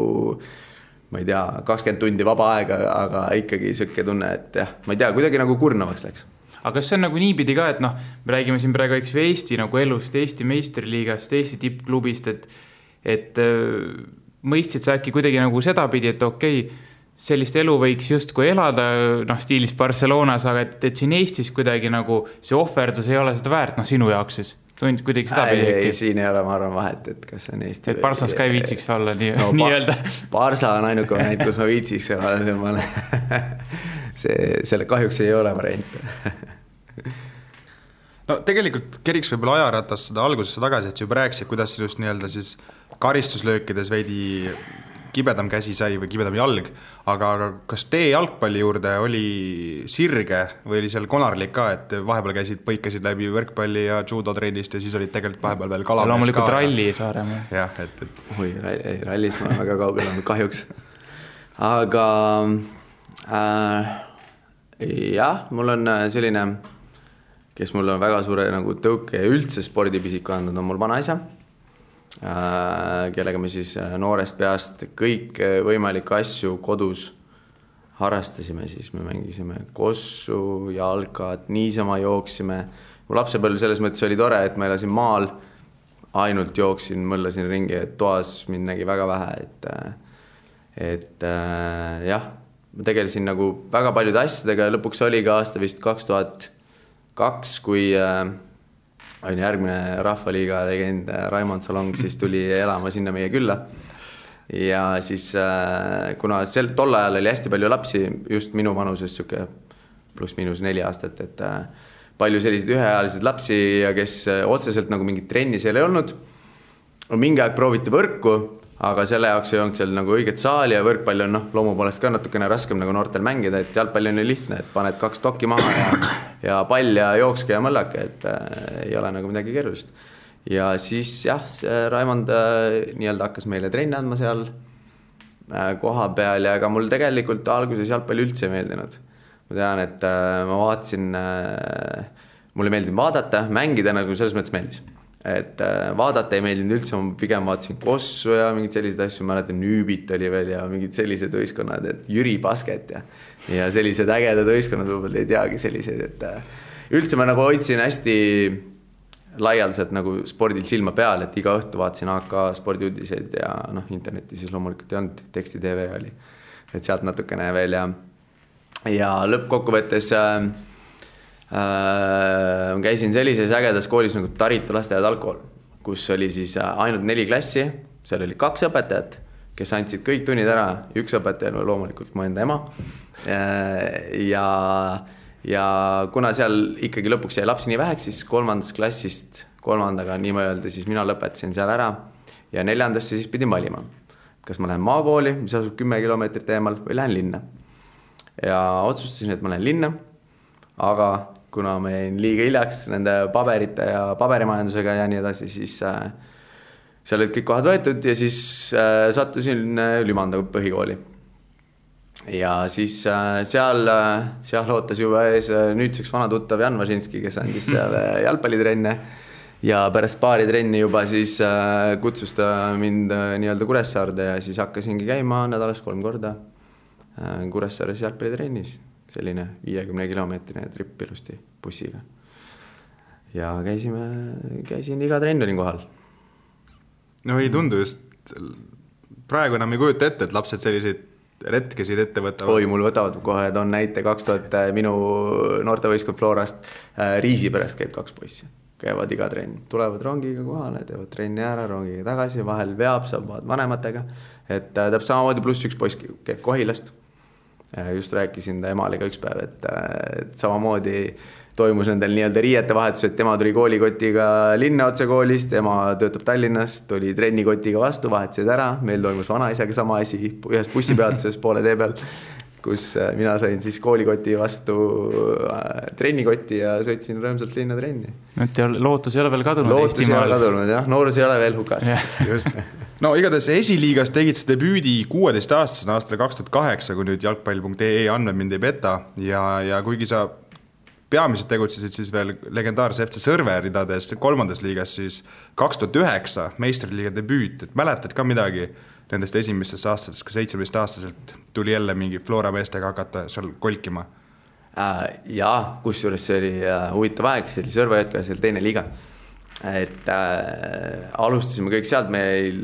[SPEAKER 5] ma ei tea, 20 tundi vaba aega, aga ikkagi sõkke tunne, et jah, ma ei tea, kuidagi nagu kurnavaks läks.
[SPEAKER 4] Aga kas see on nagu niipidi ka, et me räägime siin praegu Eesti nagu elust, Eesti meistriliigast, Eesti tippklubist, et mõistsid sa äkki kuidagi nagu sedapidi, et okei, sellist elu võiks justkui elada stiilis Barcelonas, aga et siin Eestis kuidagi nagu see ohverdus ei ole seda väärt sinu jaoks siis? Tundid kuidagi seda pidi? Ei, siin
[SPEAKER 5] ei ole, ma arvan vahet, et kas on Eesti
[SPEAKER 4] et Barsas ka ei viitsiks olla nii-öelda.
[SPEAKER 5] Barsa on ainuke variant, kus ma viitsiks selle kahjuks ei ole variant.
[SPEAKER 3] No tegelikult keriks võib-olla ajaratas seda algusesse tagasi, et sa juba rääkisid, kuidas just nii-öelda siis karistuslöökides veidi kibedam käsi sai või kibedam jalg, aga kas tee jalgpalli juurde oli sirge või oli seal konarlik ka, et vahepeal põikasid läbi võrkpalli ja judo trennist ja siis olid tegelikult vahepeal veel kalamees ka.
[SPEAKER 4] Loomulikult ralli Saaremaa.
[SPEAKER 3] Jah, et.
[SPEAKER 5] Oi, rallis ma olen väga kaugel olnud kahjuks. Aga jah, mul on selline, kes mul on väga suure nagu tõuke ja üldse spordipisik andnud, on mul vanaisa, kellega me siis noorest peast kõik võimalikke asju kodus harrastasime, siis me mängisime kossu, jalkat, niisama jooksime. Mu lapsepõlv selles mõttes oli tore, et ma elasin maal, ainult jooksin, mõllasin ringi, et toas mind nägi väga vähe, et jah, ma tegelesin nagu väga paljude asjadega ja lõpuks oli ka aasta vist 2002, kui on järgmine Rahvaliiga legend Raimond Salong, siis tuli elama sinna meie külla. Ja siis, kuna tol ajal oli hästi palju lapsi, just minu vanuses pluss-miinus 4 aastat, et palju selliseid üheajalised lapsi ja kes otseselt nagu mingit trenni seal ei olnud. Mingi aeg prooviti võrku, aga selle jaoks ei olnud seal nagu õiget saali ja võrkpalli on loomu poolest ka natukene raskem nagu noortel mängida, et jalgpalli on lihtne, et paned 2 dokki maha ja pall ja jookske ja mõllake, et ei ole nagu midagi keerulist. Ja siis jah, Raimond nii-öelda hakkas meile trenni andma seal koha peal ja ega mul tegelikult alguses jalgpalli üldse ei meeldinud. Ma tean, et ma vaatasin, mulle meeldinud vaadata, mängida nagu selles mõttes meeldis. et vaadata ei meeldinud üldse, ma pigem vaatasin Kossu ja mingid sellised asju, mäletan Nüübit oli veel ja mingid sellised võistkonnad, et Jüri Basket ja sellised ägedad võistkonnad võib-olla ei teagi selliseid, et üldse ma nagu hoidsin hästi laialdaselt nagu spordil silma peal, et iga õhtu vaatasin AK spordiuudiseid ja internetis siis loomulikult ei olnud, teksti TV oli, et sealt natukene veel ja lõppkokkuvõttes käisin sellises ägedas koolis nagu Taritu lasteaed algkool, kus oli siis ainult 4 klassi, seal oli 2 õpetajat, kes andsid kõik tunnid ära, 1 õpetaja loomulikult mu enda ema ja kuna seal ikkagi lõpuks jäi lapsi nii väheks, siis 3. klassist 3. nii ma öelda, siis mina lõpetasin seal ära ja 4. siis pidin valima, kas ma lähen maakooli, mis asub 10 kilomeetrit eemal või lähen linna ja otsustasin, et ma lähen linna, aga kuna ma jäin liiga hiljaks nende paberite ja paberimajandusega ja nii edasi, siis seal olid kõik kohad võetud ja siis sattusin Lümanda põhikooli. Ja siis seal ootas juba ees nüüdseks vana tuttav Jan Važinski, kes andis seal jalgpallitrenne ja pärast paari trenni juba siis kutsus ta mind nii-öelda Kuressaarde ja siis hakkasingi käima nädalas 3 korda Kuressaares jalgpallitrennis. Selline 50-kilomeetrine trip ilusti bussiga. Ja käisin iga trenn olin kohal.
[SPEAKER 3] No ei tundu just, praegu enam ei kujuta ette, et lapsed selliseid retkesid ette võtavad.
[SPEAKER 5] Oi, mul võtavad kohe, et on näite 2000 minu noortevõistkond Florast Riisiperest käib 2 poissi. Käivad iga trenn, tulevad rongiga kohale, teevad trenni ära, rongiga tagasi, vahel veab, saab vanematega. Et täpselt samamoodi pluss 1 poiss käib Kohilast. Just rääkisin ta emaliga üks päev, et samamoodi toimus nendel nii-öelda riiete vahetus, et tema tuli koolikotiga linna otse koolist, ema töötab Tallinnas, tuli trennikotiga vastu, vahetasid ära, meil toimus vanaisaga sama asi, ühes bussipeatuses poole tee peal, kus mina sain siis koolikoti vastu trennikoti ja sõitsin rõõmsalt linna trenni.
[SPEAKER 4] Et lootus ei ole veel kadunud
[SPEAKER 5] Eestimaal. Lootus ei ole kadunud, jah, noorus ei ole veel hukas.
[SPEAKER 3] Just. No igatahes esiliigas tegid see debüüdi 16-aastasena aastal 2008, kui nüüd jalgpall.ee andmed mind ei peta ja kuigi sa peamiselt tegutsesid siis veel legendaarse FC Sõrve ridades 3. liigas, siis 2009 meistriliiga debüüt, et mäletad ka midagi nendest esimestest aastatest, kui 17-aastaselt tuli jälle mingi Flora meestega hakata seal kolkima?
[SPEAKER 5] Jaa, kusjuures see oli huvitav aeg, see oli Sõrve hetkel, see oli 2. liiga. Et alustasime kõik sealt, meil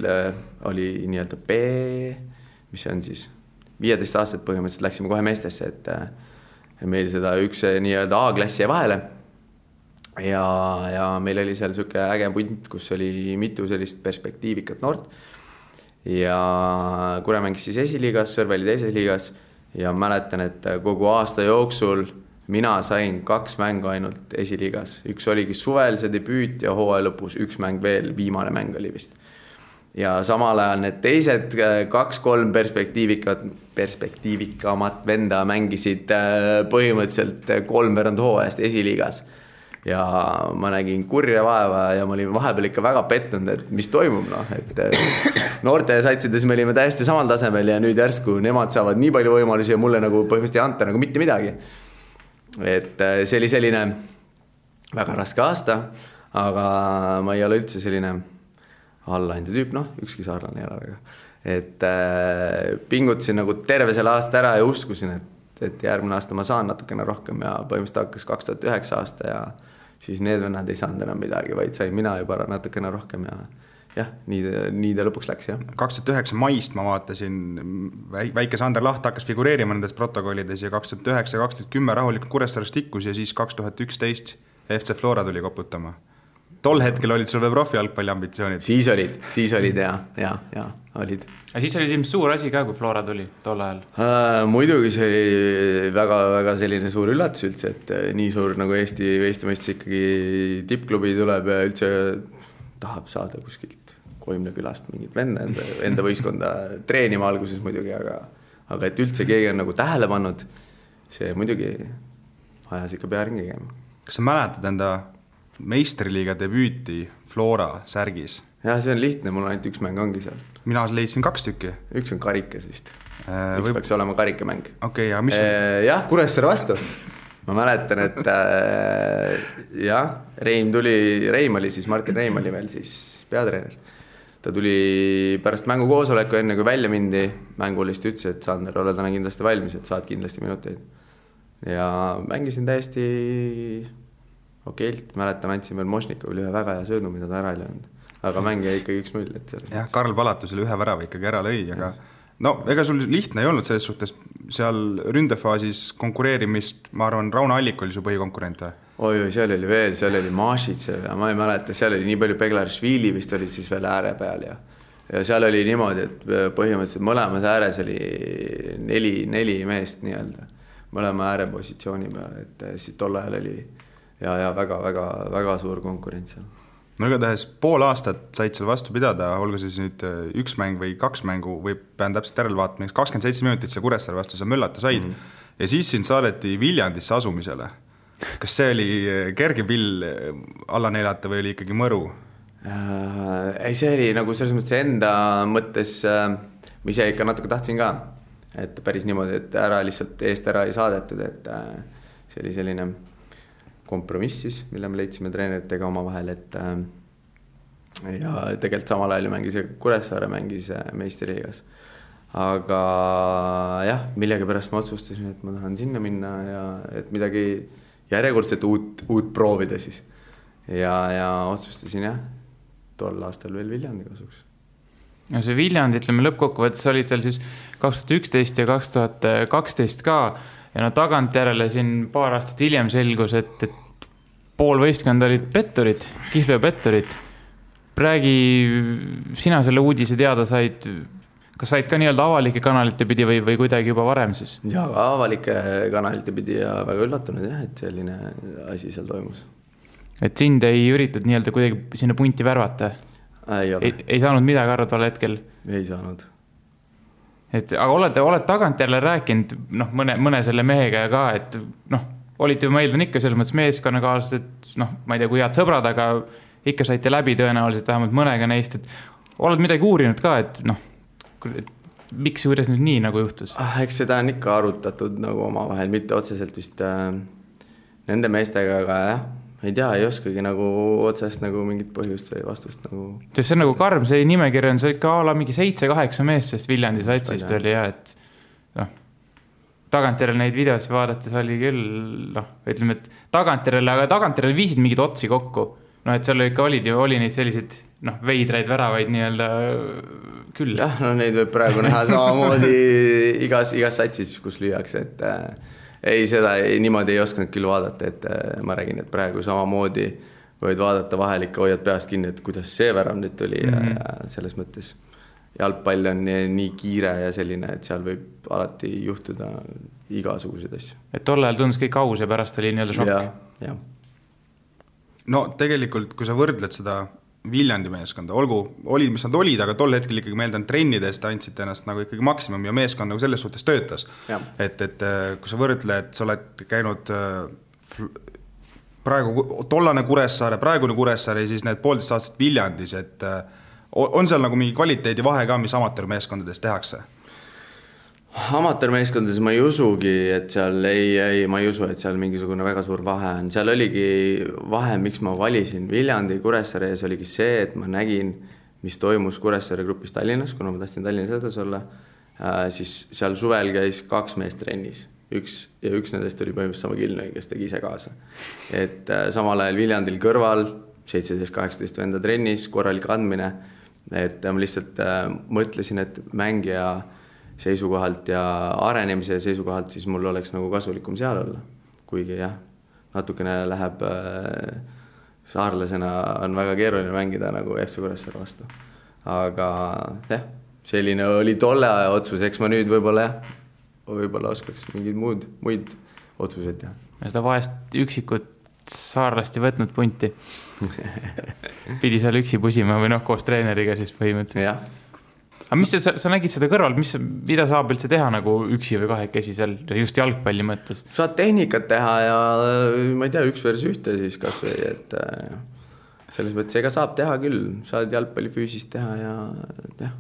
[SPEAKER 5] oli nii-öelda B, mis on siis 15 aastat põhimõtteliselt läksime kohe meestesse, et meil seda üks nii-öelda A-klassi jäi vahele ja meil oli seal siuke äge punt, kus oli mitu sellist perspektiivikat noort ja Kure mängis siis esiliigas, Sõrve oli 2. liigas ja mäletan, et kogu aasta jooksul mina sain 2 mängu ainult esiliigas. Üks oligi suvel see debüüt ja hooaja lõpus 1 mäng veel, viimane mäng oli vist. Ja samal ajal need teised 2-3 perspektiivikamat venda mängisid põhimõtteliselt 3 hooajast esiliigas. Ja ma nägin kurja vaeva ja ma olin vahepeal ikka väga pettunud, et mis toimub, et noorte satsides me olime täiesti samal tasemel ja nüüd järsku nemad saavad nii palju võimalusi ja mulle nagu põhimõtteliselt ei anta nagu mitte midagi. Et see oli selline väga raske aasta, aga ma ei ole üldse selline allainde tüüp, ükski saarlane ei ole väga. Et pingutasin nagu terve selle aasta ära ja uskusin, et järgmine aasta ma saan natukene rohkem ja põhimõtteliselt hakkas 2009 aasta ja siis need vennad ei saanud enam midagi, vaid sain mina juba natukene rohkem ja jah, nii ta lõpuks läks, jah.
[SPEAKER 3] 2009 maist ma vaatasin, väike Sander Laht hakkas figureerima nendes protokollides ja 2009-2010 rahulikult Kuressaares tikkus ja siis 2011 FC Flora tuli koputama. Tol hetkel olid sul veel profi jalgpalli ambitsioonid?
[SPEAKER 5] Siis olid ja olid.
[SPEAKER 4] Ja siis oli ilmselt suur asi ka, kui Flora tuli tol ajal?
[SPEAKER 5] Muidugi see oli väga selline suur üllatus üldse, et nii suur nagu Eesti mõistes ikkagi tippklubi tuleb ja üldse tahab saada kuskilt Koimne külast mingit enda võistkonda treenima alguses muidugi, aga et üldse keegi on nagu tähele pannud, see muidugi ajas ikka pea ringi käima.
[SPEAKER 3] Kas sa mäletad enda meistriliiga debüüti Flora särgis?
[SPEAKER 5] Jah, see on lihtne, mul ainult 1 mäng ongi seal.
[SPEAKER 3] Mina leidsin 2 tükki.
[SPEAKER 5] Üks on karikas vist. Üks peaks olema karikamäng.
[SPEAKER 3] Okei, ja mis on?
[SPEAKER 5] Jah, Kuressaare vastu. ma mäletan, et jah, Reim oli siis, Martin Reim oli veel siis peatreener. Ta tuli pärast mängukoosoleku enne, kui välja mindi, mängulist ütles, et Sander, ole täna kindlasti valmis, et saad kindlasti minuteid. Ja mängisin täiesti okeilt, mäletan, andsin veel Mošnikovile ühe väga hea söödu, mida ta ära ei löönud. Aga mäng jäi ikkagi 1-0.
[SPEAKER 3] Jah, Karl Palatusele ühe värava ikkagi ära lõi, aga no ega sul lihtne ei olnud selles suhtes seal ründefaasis konkureerimist, ma arvan, Rauno Allik oli su põhikonkurent.
[SPEAKER 5] Oi, seal oli veel, seal oli Mašitsev ja ma ei mäleta, seal oli nii palju Beglarishvili vist oli siis veel ääre peal ja seal oli niimoodi, et põhimõtteliselt mõlemas ääres oli 4 meest nii-öelda, mõlema äärepositsiooni peal, et siis tol ajal oli ja väga suur konkurents seal.
[SPEAKER 3] No igatahes pool aastat said seal vastu pidada, olgu siis nüüd 1 mäng või 2 mängu või pean täpselt järele vaatama, 27 minutit seal Kuressaare vastu sa möllata said ja siis sind saadeti Viljandisse asumisele. Kas see oli kerge pill alla neelata või oli ikkagi mõru?
[SPEAKER 5] Ei, see oli nagu selles mõttes enda mõttes, ma ise ikka natuke tahtsin ka, et päris niimoodi, et ära lihtsalt eest ära ei saadetud, et see oli selline kompromiss siis, mille me leidsime treeneritega oma vahel, et ja tegelikult samal ajal mängis Kuressaare mängis meistriliigas. Aga jah, millega pärast ma otsustasin, et ma tahan sinna minna ja et midagi järjekordselt uut proovida siis. Ja otsustasin jah, tol aastal veel Viljandi kasuks.
[SPEAKER 4] Ja see Viljandi, ütleme lõppkokkuvõttes olid seal siis 2011 ja 2012 ka ja no tagantjärele siin paar aastat hiljem selgus, et pool võistkond olid petturid, Kihlveo petturid. Räägi, sina selle uudise teada said, kas said ka nii-öelda avalike kanalite pidi või kuidagi juba varem siis?
[SPEAKER 5] Ja avalike kanalite pidi ja väga üllatunud jah, et selline asi seal toimus.
[SPEAKER 4] Et sind ei üritud nii-öelda kuidagi sinna punti värvata? Ei saanud midagi aru tol hetkel?
[SPEAKER 5] Ei saanud.
[SPEAKER 4] Aga oled tagantjärele rääkinud mõne selle mehega ka, et olite ju meeldan ikka selles mõttes meeskonnakaaslased, ma ei tea, kui head sõbrad, aga ikka saite läbi tõenäoliselt vähemalt mõnega neist, et oled midagi uurinud ka, et miks ja kuidas nüüd nii nagu juhtus?
[SPEAKER 5] Eks seda on ikka arutatud nagu omavahel, mitte otseselt vist nende meestega, aga jah, ei tea, ei oskagi nagu otsest nagu mingit põhjust või vastust nagu.
[SPEAKER 4] See on nagu karm, see nimekiri on see ikka ala mingi 7-8 meest, sest Viljandi satsist oli ja, et tagantjärele neid videosi vaadates oli küll, ütleme, et tagantjärele viisid mingid otsi kokku. Et seal ikka oli neid selliseid veidraid väravaid nii-öelda küll.
[SPEAKER 5] Jah, neid võib praegu näha samamoodi igas satsis, kus lüüakse, et ei, seda niimoodi ei osanud küll vaadata, et ma räägin, et praegu samamoodi võid vaadata vahel ikka hoiad peast kinni, et kuidas see värav nüüd tuli ja selles mõttes jalgpall on nii kiire ja selline, et seal võib alati juhtuda igasuguseid asju. Et
[SPEAKER 4] tol ajal tundus kõik aus ja pärast oli nii-öelda šokk.
[SPEAKER 5] Ja.
[SPEAKER 3] No tegelikult, kui sa võrdled seda Viljandi meeskonda, olid, mis nad olid, aga tol hetkel ikkagi meeldan trennidest andsid ennast nagu ikkagi maksimum ja meeskond nagu selles suhtes töötas. Et kui sa võrdled, sa oled käinud praegu tollane Kuressaare, praegune Kuressaare ja siis need 1,5 aastat Viljandis, et on seal nagu mingi kvaliteedi vahe ka, mis amatöörmeeskondades tehakse?
[SPEAKER 5] Amatöörmeeskondades ma ei usugi, et seal ma ei usu, et seal mingisugune väga suur vahe on. Seal oligi vahe, miks ma valisin Viljandi Kuressaare ees oligi see, et ma nägin, mis toimus Kuressaare grupis Tallinnas, kuna ma tahtsin Tallinnas edasi olla, siis seal suvel käis 2 meest trennis. Üks nendest oli põhimõtteliselt sama Kilnõi, kes tegi ise kaasa. Et samal ajal Viljandil kõrval 17-18 venda trennis, korralik andmine, et ma lihtsalt mõtlesin, et mängija seisukohalt ja arenemise seisukohalt siis mul oleks nagu kasulikum seal olla. Kuigi jah, natukene läheb saarlasena on väga keeruline mängida nagu FC Kuressaare vastu. Aga jah, selline oli tolle aja otsus, eks ma nüüd võib-olla oskaks mingid muid otsuseid teha.
[SPEAKER 4] Ja seda vahest üksikut saarlasti võtnud punti. Pidi seal üksi pusima või koos treeneriga siis põhimõtteliselt.
[SPEAKER 5] Jah.
[SPEAKER 4] Aga mis sa nägid seda kõrval, mida saab üldse teha nagu üksi või kahekesi seal just jalgpalli mõttes?
[SPEAKER 5] Saad tehnikat teha ja ma ei tea, 1 versus 1 siis kas või, et selles mõttes ega saab teha küll, saad jalgpalli füüsist teha ja jah,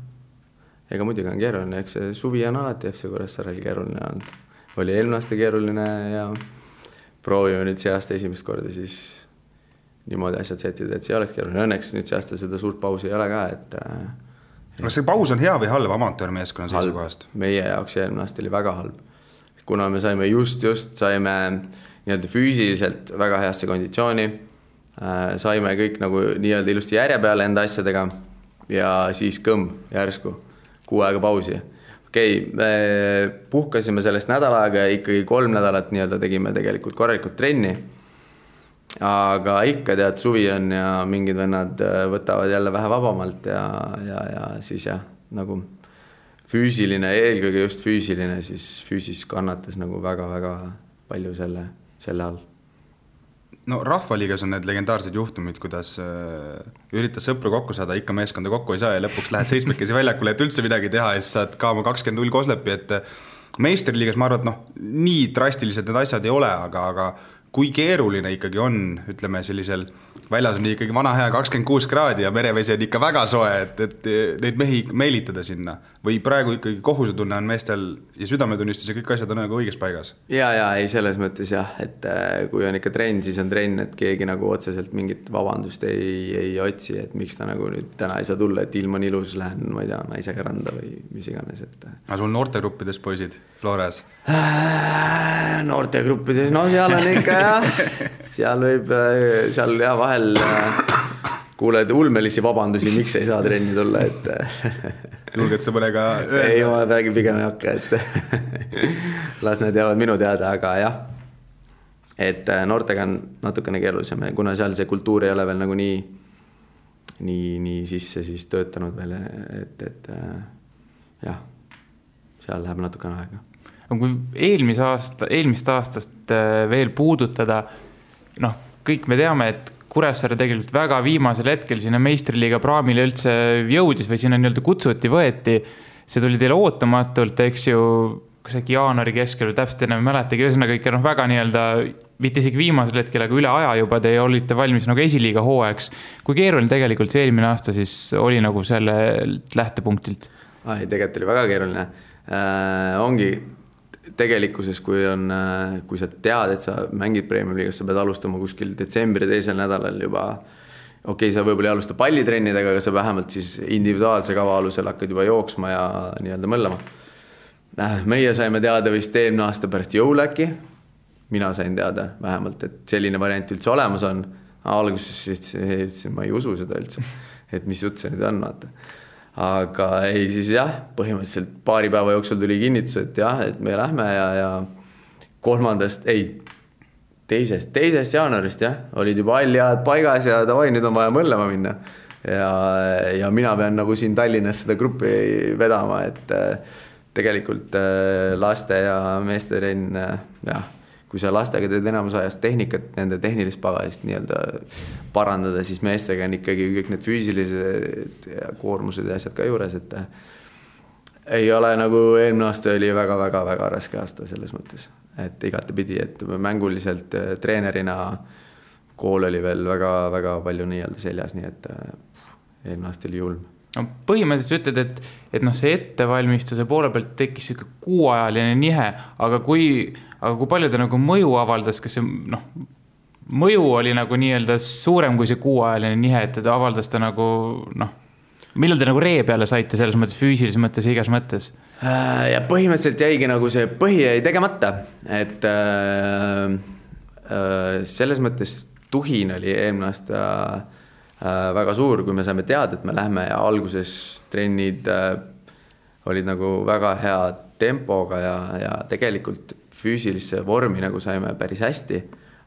[SPEAKER 5] ega muidugi on keeruline, eks see suvi on alati FC Kuressaarel keeruline olnud. Oli eelmine aasta keeruline ja proovime nüüd see aasta esimest korda siis niimoodi asjad setida, et see oleks keeruline. Õnneks nüüd see aasta seda suurt pausi ei ole ka, et
[SPEAKER 3] kas see paus on hea või halb amatöörmeeskonna seisukohast?
[SPEAKER 5] Meie jaoks eelmine aasta oli väga halb. Kuna me saime just saime nii-öelda füüsiliselt väga heasse konditsiooni, saime kõik nagu nii-öelda ilusti järje peale enda asjadega ja siis järsku 6 aega pausi. Me puhkasime sellest nädal aega ja ikkagi 3 nädalat nii-öelda tegime tegelikult korralikult trenni. Aga ikka tead, suvi on ja mingid vennad võtavad jälle vähe vabamalt ja siis nagu füüsiline, eelkõige just füüsiline, siis füüsis kannatas nagu väga-väga palju selle all.
[SPEAKER 3] No Rahvaliigas on need legendaarsed juhtumid, kuidas üritas sõpru kokku saada, ikka meeskonda kokku ei saa ja lõpuks lähed 7 väljakule, et üldse midagi teha ja siis saad ka oma 20-0 koslepi, et meistriliigas ma arvan, et nii drastilised need asjad ei ole, aga kui keeruline ikkagi on, ütleme sellisel väljas on ikkagi vana hea 26 kraadi ja merevesi on ikka väga soe, et neid mehi meelitada sinna või praegu ikkagi kohusetunne on meestel ja südametunnistus ja kõik asjad on nagu õiges paigas?
[SPEAKER 5] Ja, ei selles mõttes et kui on ikka trenn, siis on trenn, et keegi nagu otseselt mingit vabandust ei otsi, et miks ta nagu nüüd täna ei saa tulla, et ilm on ilus, lähen, ma ei tea, naisega randa või mis iganes.
[SPEAKER 3] Aga sul noortegruppides poisid Flores?
[SPEAKER 5] Noortegruppides, no seal on ikka seal võib, seal vahel kuuled ulmelisi vabandusi, miks ei saa trenni tulla, et
[SPEAKER 3] julged sa mõnega öelda?
[SPEAKER 5] Ei, ma räägin pigem ei hakka, et las need jäävad minu teada, aga jah, et noortega on natukene keerulisem, kuna seal see kultuur ei ole veel nagu nii sisse siis töötanud veel, et jah, seal läheb natukene aega.
[SPEAKER 4] Kui eelmist aastast veel puudutada, kõik me teame, et Kuressaare tegelikult väga viimasel hetkel sinna meistriliiga praamile üldse jõudis või sinna nii-öelda kutsuti, võeti. See tuli teile ootamatult, eks ju, kas äkki jaanuari keskel, täpselt enam mäletagi, ühesõnaga ikka väga nii-öelda, mitte isegi viimasel hetkel, aga üle aja juba te olite valmis nagu esiliiga hooajaks. Kui keeruline tegelikult see eelmine aasta siis oli nagu selle lähtepunktilt?
[SPEAKER 5] Tegelikult oli väga keeruline. Ongi tegelikkuses, kui sa tead, et sa mängid Premium-liigas, sa pead alustama kuskil detsembri teisel nädalal juba. Okei, sa võib-olla ei alusta pallitrennidega, aga sa vähemalt siis individuaalse kava alusel hakkad juba jooksma ja nii-öelda mõllama. Meie saime teada vist eelmine aasta pärast jõuläki. Mina sain teada vähemalt, et selline variant üldse olemas on. Alguses ütlesin, ma ei usu seda üldse, et mis jutt see nüüd on, vaata. Aga ei, siis põhimõtteliselt paari päeva jooksul tuli kinnitus, et et me lähme ja 2. jaanuarist olid juba alljad paigas ja davai, nüüd on vaja mõllema minna. Ja mina pean nagu siin Tallinnas seda gruppi vedama, et tegelikult laste ja meeste trenn, kui sa lastega teed enamus ajast tehnikat, nende tehnilist pagalist nii-öelda parandada, siis meestega on ikkagi kõik need füüsilised ja koormused ja asjad ka juures, et ei ole nagu eelmine aasta oli väga-väga-väga raske aasta selles mõttes, et igatepidi, et mänguliselt treenerina kool oli veel väga-väga palju nii-öelda seljas, nii et eelmine aasta oli julm.
[SPEAKER 4] No, põhimõtteliselt ütled, et see ettevalmistuse poole pealt tekkis 6-ajaline nihe, aga kui palju ta nagu mõju avaldas, kas see mõju oli nagu nii-öelda suurem kui see 6-ajaline nihe, et ta avaldas ta nagu millal te nagu ree peale saite selles mõttes füüsilises mõttes ja igas mõttes?
[SPEAKER 5] Ja põhimõtteliselt jäigi nagu see põhi jäi tegemata, et selles mõttes tuhin oli eelmine aasta väga suur, kui me saime teada, et me lähme ja alguses trennid olid nagu väga hea tempoga ja tegelikult füüsilisse vormi nagu saime päris hästi,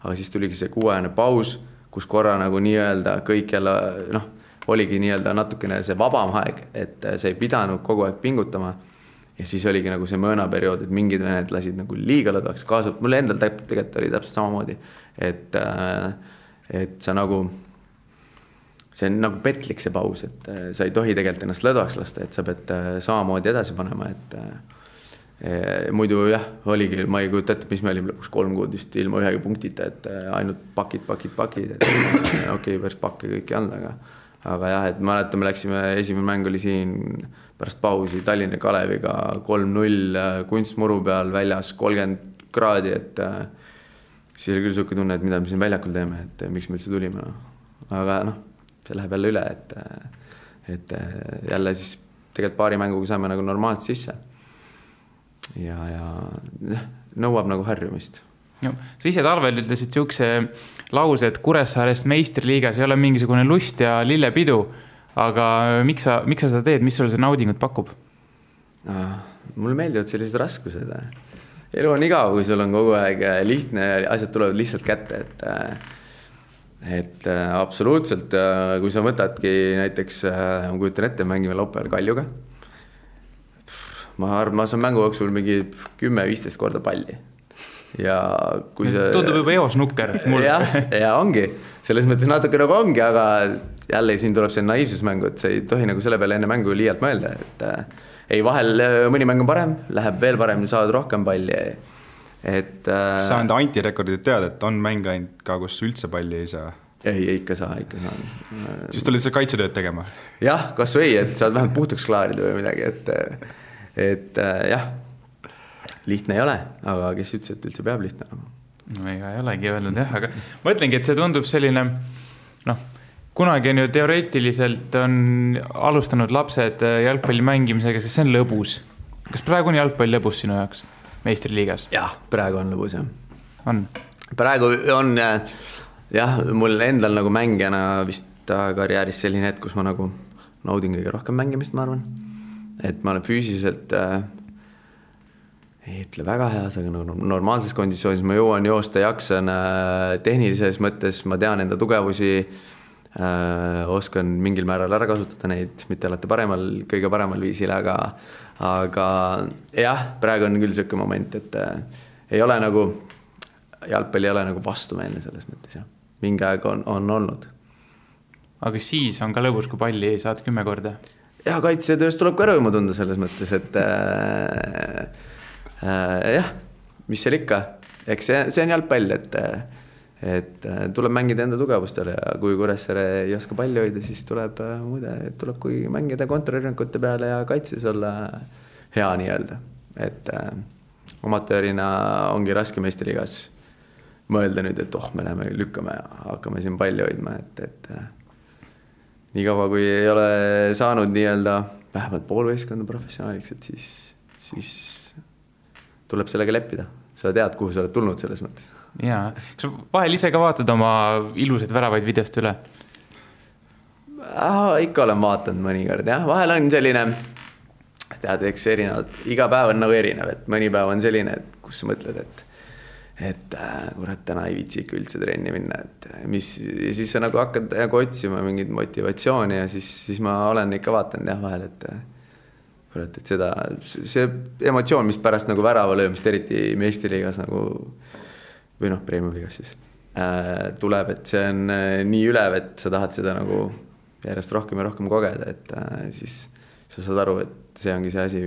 [SPEAKER 5] aga siis tuligi see 6-ajane paus, kus korra nagu nii-öelda kõik jälle, oligi nii-öelda natukene see vabam aeg, et see ei pidanud kogu aeg pingutama ja siis oligi nagu see mõõnaperiood, et mingid vened lasid nagu liiga lõdvaks kaasa, mulle endal tegelikult oli täpselt samamoodi, et sa nagu see on nagu petlik see paus, et sa ei tohi tegelikult ennast lõdvaks lasta, et sa pead samamoodi edasi panema, et muidu oligi, ma ei kujuta ette, mis me olime lõpuks 3 kuud vist ilma ühegi punktita, et ainult pakid, et okei, päris pakke kõik ei olnud, aga et mäletan, me läksime, esimene mäng oli siin pärast pausi Tallinna Kaleviga 3-0 kunstmuru peal väljas 30 kraadi, et siis oli küll siuke tunne, et mida me siin väljakul teeme, et miks me üldse tulime. Aga see läheb jälle üle, et jälle siis tegelikult paari mänguga saime nagu normaalselt sisse. Ja nõuab nagu harjumist.
[SPEAKER 4] No, sa ise talvel ütlesid siukse lause, et Kuressaarest meistriliigas ei ole mingisugune lust ja lillepidu, aga miks sa seda teed, mis sulle see naudingut pakub?
[SPEAKER 5] Mulle meeldivad sellised raskused. Elu on igav, kui sul on kogu aeg lihtne ja asjad tulevad lihtsalt kätte, et absoluutselt, kui sa võtadki näiteks, ma kujutan ette, mängime laupäeval Kaljuga, ma saan mängu jooksul mingi 10-15 korda palli. Ja kui see...
[SPEAKER 4] Tundub juba eos nukker.
[SPEAKER 5] Ja ongi. Selles mõttes natuke nagu ongi, aga jälle siin tuleb see naiivsusmängu, et sa ei tohi nagu selle peale enne mängu liialt mõelda. Ei, vahel mõni mäng on parem, läheb veel parem, saad rohkem palli.
[SPEAKER 3] Sa enda antirekordid tead, et on mäng ainult ka, kus üldse palli ei saa?
[SPEAKER 5] Ei, ikka saa.
[SPEAKER 3] Siis tulid sa kaitsetööd tegema?
[SPEAKER 5] Jah, kas või, et saad vähemalt puhtuks klaarida või midagi, et jah, lihtne ei ole, aga kes ütles, et üldse peab lihtne olema?
[SPEAKER 4] No ega ei olegi öelnud jah, aga ma ütlengi, et see tundub selline, kunagi on ju teoreetiliselt on alustanud lapsed jalgpalli mängimisega, sest see on lõbus. Kas praegu on jalgpall lõbus sinu jaoks meistriliigas?
[SPEAKER 5] Jah, praegu on lõbus, jah.
[SPEAKER 4] On?
[SPEAKER 5] Praegu on, jah, mul endal nagu mängijana vist karjääris selline hetk, kus ma nagu naudin kõige rohkem mängimist, ma arvan. Et ma olen füüsiliselt ei ütle väga heas, aga nagu normaalses kondisioonis ma jõuan joosta, jaksan tehnilises mõttes, ma tean enda tugevusi, oskan mingil määral ära kasutada neid, mitte alati kõige paremal viisil, aga jah, praegu on küll selline moment, et ei ole nagu, jalgpall ei ole nagu vastumeelne selles mõttes, jah. Mingi aeg on olnud.
[SPEAKER 4] Aga siis on ka lõbus, kui palli ei saad 10 korda?
[SPEAKER 5] Ja kaitsetöös tuleb ka rõõmu tunda selles mõttes, et jah, mis seal ikka, eks see on jalgpall, et tuleb mängida enda tugevustele ja kui Kuressaare ei oska palli hoida, siis tuleb kui mängida kontrarünnakute peale ja kaitses olla hea nii-öelda, et amatöörina ongi raske meistriliigas mõelda nüüd, et me läheme lükkame ja hakkame siin palli hoidma, et nii kaua, kui ei ole saanud nii-öelda vähemalt poolvõistkonna professionaaliks, et siis tuleb sellega leppida. Sa tead, kuhu sa oled tulnud selles mõttes.
[SPEAKER 4] Jaa. Kas vahel ise ka vaatad oma ilusaid väravaid videost üle?
[SPEAKER 5] Ikka olen vaatanud mõnikord, jah. Vahel on selline, tead, eks erinevad, iga päev on nagu erinev, et mõni päev on selline, et kus sa mõtled, et kurat, täna ei viitsi ikka üldse trenni minna, et siis sa nagu hakkad otsima mingit motivatsiooni ja siis ma olen ikka vaatanud jah vahel, et kurat, et see emotsioon, mis pärast nagu värava löömist, eriti meistriliigas nagu, või premium-liigas siis, tuleb, et see on nii ülev, et sa tahad seda nagu järjest rohkem ja rohkem kogeda, et siis sa saad aru, et see ongi see asi,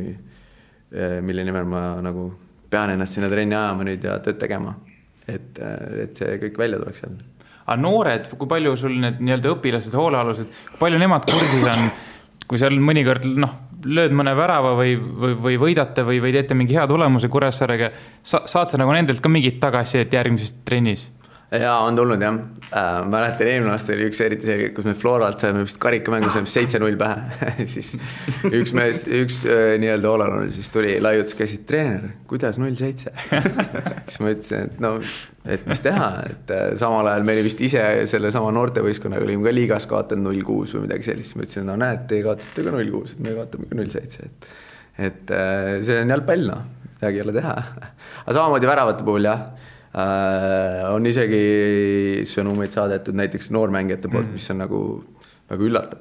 [SPEAKER 5] mille nimel ma nagu pean ennast sinna trenni ajama nüüd ja tööd tegema, et see kõik välja tuleks seal.
[SPEAKER 4] Aga noored, kui palju sul need nii-öelda õpilased, hoolealused, kui palju nemad kursis on, kui seal mõnikord lööd mõne värava või võidate või teete mingi hea tulemuse Kuressaarega, saad sa nagu nendelt ka mingit tagasi, et järgmises trennis?
[SPEAKER 5] Jaa, on tulnud jah. Ma mäletan eelmine aasta oli üks eriti see, kus me Floralt saime vist karikamängu, saime 7-0 pähe. Siis üks nii-öelda Olan siis tuli laiutus, käisid treener, kuidas 0-7? Siis ma ütlesin, et mis teha, et samal ajal meil vist ise selle sama noortevõiskonnaga olime ka liigas kaotanud 0-6 või midagi sellist. Ma ütlesin, näed, te kaotate ka 0-6, et me kaotame ka 0-7. Et see on jalgpall, midagi ei ole teha. Aga samamoodi väravate puhul jah, on isegi sõnumeid saadetud näiteks noormängijate poolt, mis on nagu väga üllatav.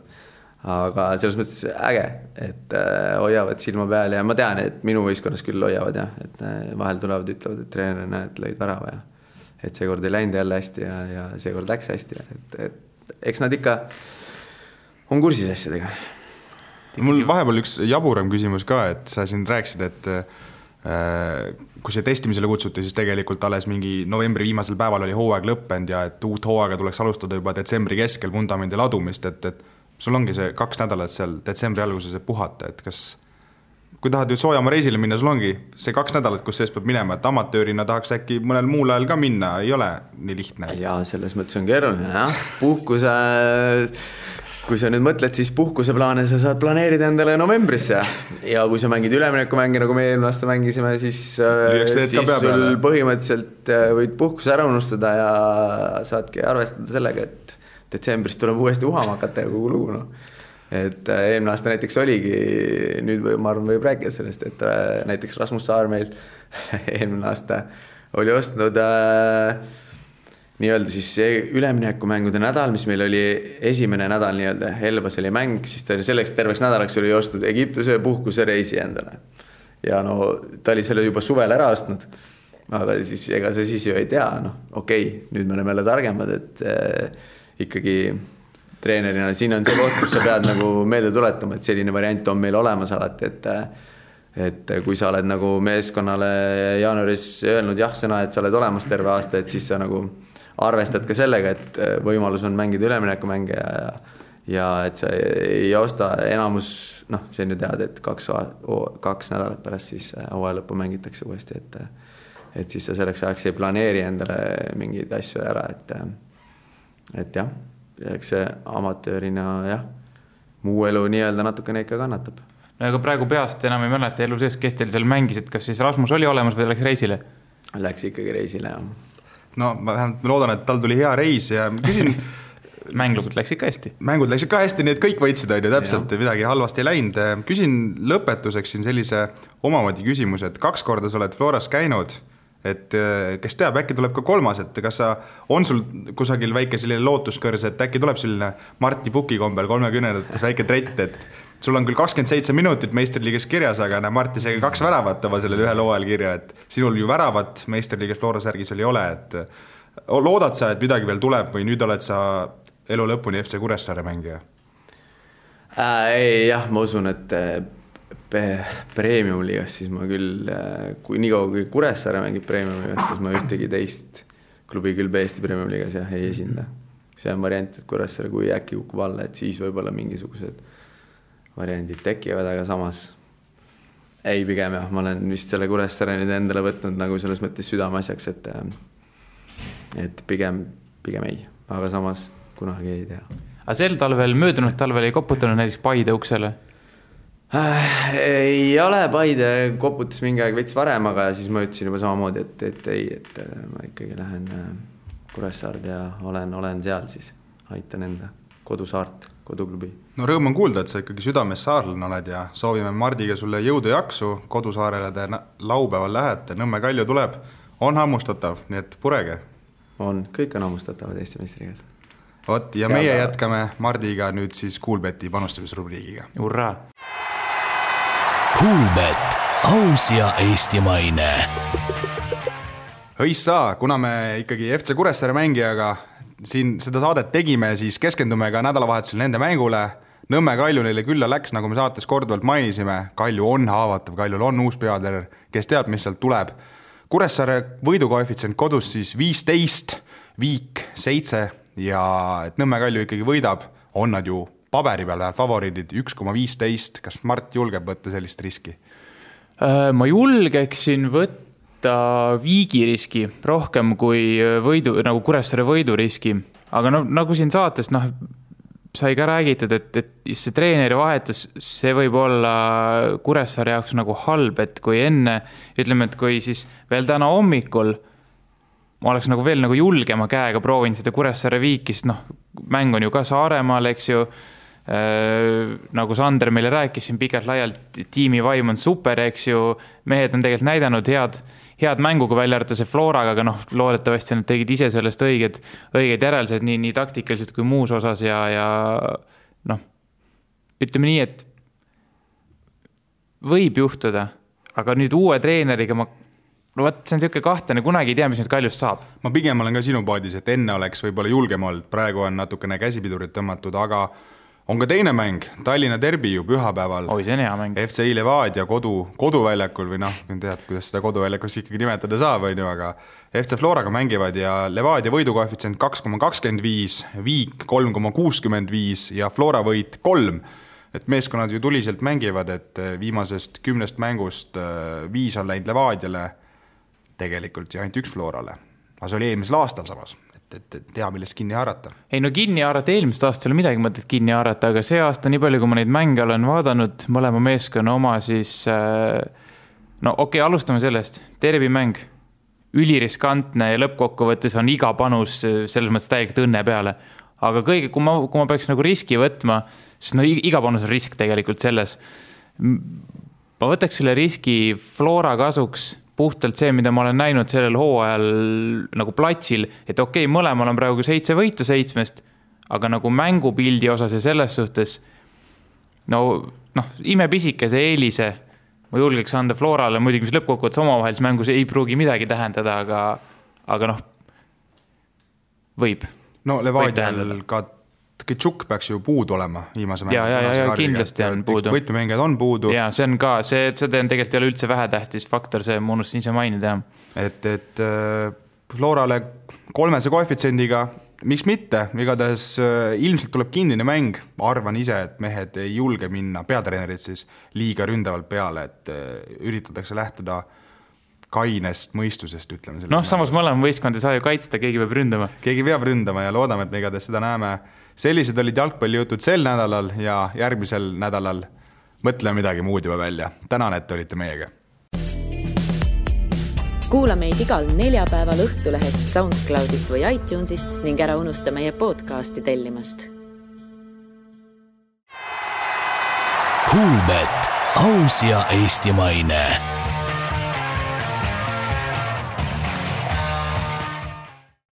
[SPEAKER 5] Aga selles mõttes äge, et hoiavad silma peal ja ma tean, et minu võistkonnas küll hoiavad jah, et vahel tulevad, ütlevad, et treener näed, lõid värava ja et seekord ei läinud jälle hästi ja seekord läks hästi. Et eks nad ikka on kursis asjadega.
[SPEAKER 3] Mul vahepeal üks jaburam küsimus ka, et sa siin rääkisid, et kui see testimisele kutsuti, siis tegelikult alles mingi novembri viimasel päeval oli hooaeg lõppend ja et uut hooaega tuleks alustada juba detsembri keskel vundamendi ladumist, et sul ongi see 2 nädalat seal detsembri alguses puhata, et kas kui tahad ju soojamaa reisile minna, sul ongi see 2 nädalat, kus sees peab minema, et amatöörina tahaks äkki mõnel muul ajal ka minna, ei ole nii lihtne.
[SPEAKER 5] Jaa, selles mõttes on keeruline, jah. Puhkuse, kui sa nüüd mõtled, siis puhkuseplaane sa saad planeerida endale novembrisse. Ja kui sa mängid üleminekumängi, nagu me eelmine aasta mängisime, siis sul põhimõtteliselt võid puhkuse ära unustada ja saadki arvestada sellega, et detsembris tuleb uuesti uhama hakata ja kogu lugu, no. Et eelmine aasta näiteks oligi, nüüd ma arvan võib rääkida sellest, et näiteks Rasmus Saar meil eelmine aasta oli ostnud nii-öelda siis üleminekumängude nädal, mis meil oli esimene nädal nii-öelda, Elvas oli mäng, siis ta oli selleks terveks nädalaks oli ostnud Egiptuse puhkuse reisi endale. Ja no ta oli selle juba suvel ära ostnud, aga siis ega sa siis ju ei tea, no okei, nüüd me oleme jälle targemad, et ikkagi treenerina, siin on see koht, kus sa pead nagu meelde tuletama, et selline variant on meil olemas alati, et kui sa oled nagu meeskonnale jaanuaris öelnud jah-sõna, et sa oled olemas terve aasta, et siis sa nagu arvestad ka sellega, et võimalus on mängida üleminekumänge ja et sa ei osta enamus, noh, see nüüd tead, et 2 nädalat pärast siis hooaja lõppu mängitakse uuesti, et siis sa selleks ajaks ei planeeri endale mingeid asju ära, et jah, eks see amatöörina, jah, muu elu nii-öelda natukene ikka kannatab.
[SPEAKER 4] No aga praegu peast enam ei mäleta elu sees, kes teil seal mängis, et kas siis Rasmus oli olemas või läks reisile?
[SPEAKER 5] Läks ikkagi reisile, jah.
[SPEAKER 3] No ma vähemalt loodan, et tal tuli hea reis ja küsin...
[SPEAKER 4] Mängud läksid ka hästi.
[SPEAKER 3] Mängud läksid ka hästi, nii et kõik võitsid, on ju täpselt, midagi halvasti ei läinud. Küsin lõpetuseks siin sellise omamoodi küsimus, et 2 korda sa oled Floras käinud, et kes teab, äkki tuleb ka 3, et kas on sul kusagil väike selline lootuskõrs, et äkki tuleb selline Marti Puki kombel 30-ndates väike trett, et sul on küll 27 minutit meistriliigas kirjas, aga Marti see 2 väravat oma sellel ühel hooajal kirja, et sinul ju väravat meistriliigas Flora särgis ei ole, et loodad sa, et midagi veel tuleb või nüüd oled sa elu lõpuni FC Kuressaare mängija?
[SPEAKER 5] Ei, jah, ma usun, et Premium-liigas, siis ma küll, kui nii kaua kui Kuressaare mängib Premium-liigas, siis ma ühtegi teist klubi küll Eesti Premium-liigas jah, ei esinda. See on variant, et Kuressaare kui äkki kukub alla, et siis võib-olla mingisugused variandid tekivad, aga samas ei pigem jah, ma olen vist selle Kuressaare nüüd endale võtnud nagu selles mõttes südameasjaks, et pigem ei, aga samas kunagi ei tea.
[SPEAKER 4] Aga sel talvel, möödunud talvel ei koputanud näiteks Paide uksele?
[SPEAKER 5] Ei ole, Paide koputas mingi aeg veits varem, aga siis ma ütlesin juba samamoodi, et ma ikkagi lähen Kuressaard ja olen seal siis, aitan enda kodusaart, koduklubi.
[SPEAKER 3] No rõõm on kuulda, et sa ikkagi südames saarlane oled ja soovime Mardiga sulle jõudu jaksu, kodusaarele te laupäeval lähete, Nõmme Kalju tuleb, on hammustatav, nii et purege.
[SPEAKER 5] On, kõik on hammustatavad Eesti meistrigas.
[SPEAKER 3] Vot, ja meie jätkame Mardiga nüüd siis Kuulbeti panustamisrubriigiga.
[SPEAKER 4] Urraa!
[SPEAKER 2] Kuulbet, aus ja eestimaine.
[SPEAKER 3] Õissa, kuna me ikkagi FC Kuressaare mängijaga siin seda saadet tegime, siis keskendume ka nädalavahetusel nende mängule. Nõmme Kalju neile külla läks, nagu me saates korduvalt mainisime. Kalju on haavatav, Kaljul on uus peatreener, kes teab, mis sealt tuleb. Kuressaare võidukoefitsient kodus siis 15, Viik 7 ja et Nõmme Kalju ikkagi võidab, on nad ju paberi peal läheb favoriidid 1,15. Kas Mart julgeb võtta sellist riski?
[SPEAKER 4] Ma julgeksin võtta Viigi riski rohkem kui nagu Kuressaare võidu riski. Aga no, nagu siin saates sai ka räägitud, et see treeneri vahetus, see võib olla Kuressaare jaoks nagu halb, et kui enne, ütleme, et kui siis veel täna hommikul ma oleks nagu veel nagu julgema käega proovin seda Kuressaare Viikist, mäng on ju ka Saaremaal, eks ju, nagu Sander meile rääkis siin pikalt laialt, tiimi vaim on super, eks ju, mehed on tegelikult näidanud head mängu, kui välja arvata see Floraga, aga loodetavasti nad tegid ise sellest õiged järeldused nii taktikaliselt kui muus osas ja ütleme nii, et võib juhtuda, aga nüüd uue treeneriga see on selline kahtlane, kunagi ei tea, mis nüüd Kaljust saab.
[SPEAKER 3] Ma pigem olen ka sinu paadis, et enne oleks võib-olla julgem olnud, praegu on natukene käsipidurit tõmmatud, aga on ka teine mäng, Tallinna derbi ju pühapäeval.
[SPEAKER 4] Oi, see on hea mäng.
[SPEAKER 3] FC Levadia koduväljakul või tead, kuidas seda koduväljakust ikkagi nimetada saab, aga FC Floraga mängivad ja Levadia võidukoefitsient 2,25, Viik 3,65 ja Flora võit 3. et meeskonnad ju tuliselt mängivad, et viimasest 10 mängust 5 on läinud Levadiale, tegelikult ja ainult 1 Florale. Aga see oli eelmisel aastal samas, et tea, millest kinni haarata.
[SPEAKER 4] Ei no kinni haarata, eelmist aastal ei ole midagi mõtet kinni haarata, aga see aasta nii palju, kui ma neid mänge olen vaadanud, mõlema meeskonna oma, siis no okei, alustame sellest. Derbimäng, üliriskantne ja lõppkokkuvõttes on iga panus selles mõttes täielikult õnne peale. Aga kõige, kui ma peaks nagu riski võtma, siis no iga panus on risk tegelikult selles. Ma võtaks selle riski Flora kasuks puhtalt see, mida ma olen näinud sellel hooajal nagu platsil, et okei, mõlemal on praegu 7 võitu 7, aga nagu mängupildi osas ja selles suhtes imepisikese eelise ma julgeks anda Florale, muidugi mis lõppkokkuvõttes omavahelis mängus ei pruugi midagi tähendada, aga võib.
[SPEAKER 3] No Levadial ka Tšuk peaks ju puudu olema viimase mängu.
[SPEAKER 4] Ja kindlasti on puudu.
[SPEAKER 3] Võtmemängijad on puudu.
[SPEAKER 4] Ja see on ka, see tegelikult ei ole üldse vähetähtis faktor, see ma unustasin ise mainida.
[SPEAKER 3] Et Florale 3 koefitsiendiga, miks mitte, igatahes ilmselt tuleb kinnine mäng, arvan ise, et mehed ei julge minna, peatreenerid siis liiga ründavalt peale, et üritatakse lähtuda kainest mõistusest, ütleme.
[SPEAKER 4] Samas mõlema võistkond ei saa ju kaitsta, keegi peab ründama.
[SPEAKER 3] Keegi peab ründama ja loodame, et me igatahes seda näeme. Sellised olid jalgpallijutud sel nädalal ja järgmisel nädalal mõtleme midagi muud juba välja. Tänan, et olite meiega.
[SPEAKER 1] Kuula meid igal neljapäeval Õhtulehest, SoundCloudist või iTunesist ning ära unusta meie podcasti tellimast.
[SPEAKER 2] Kuulbet, aus ja eestimaine.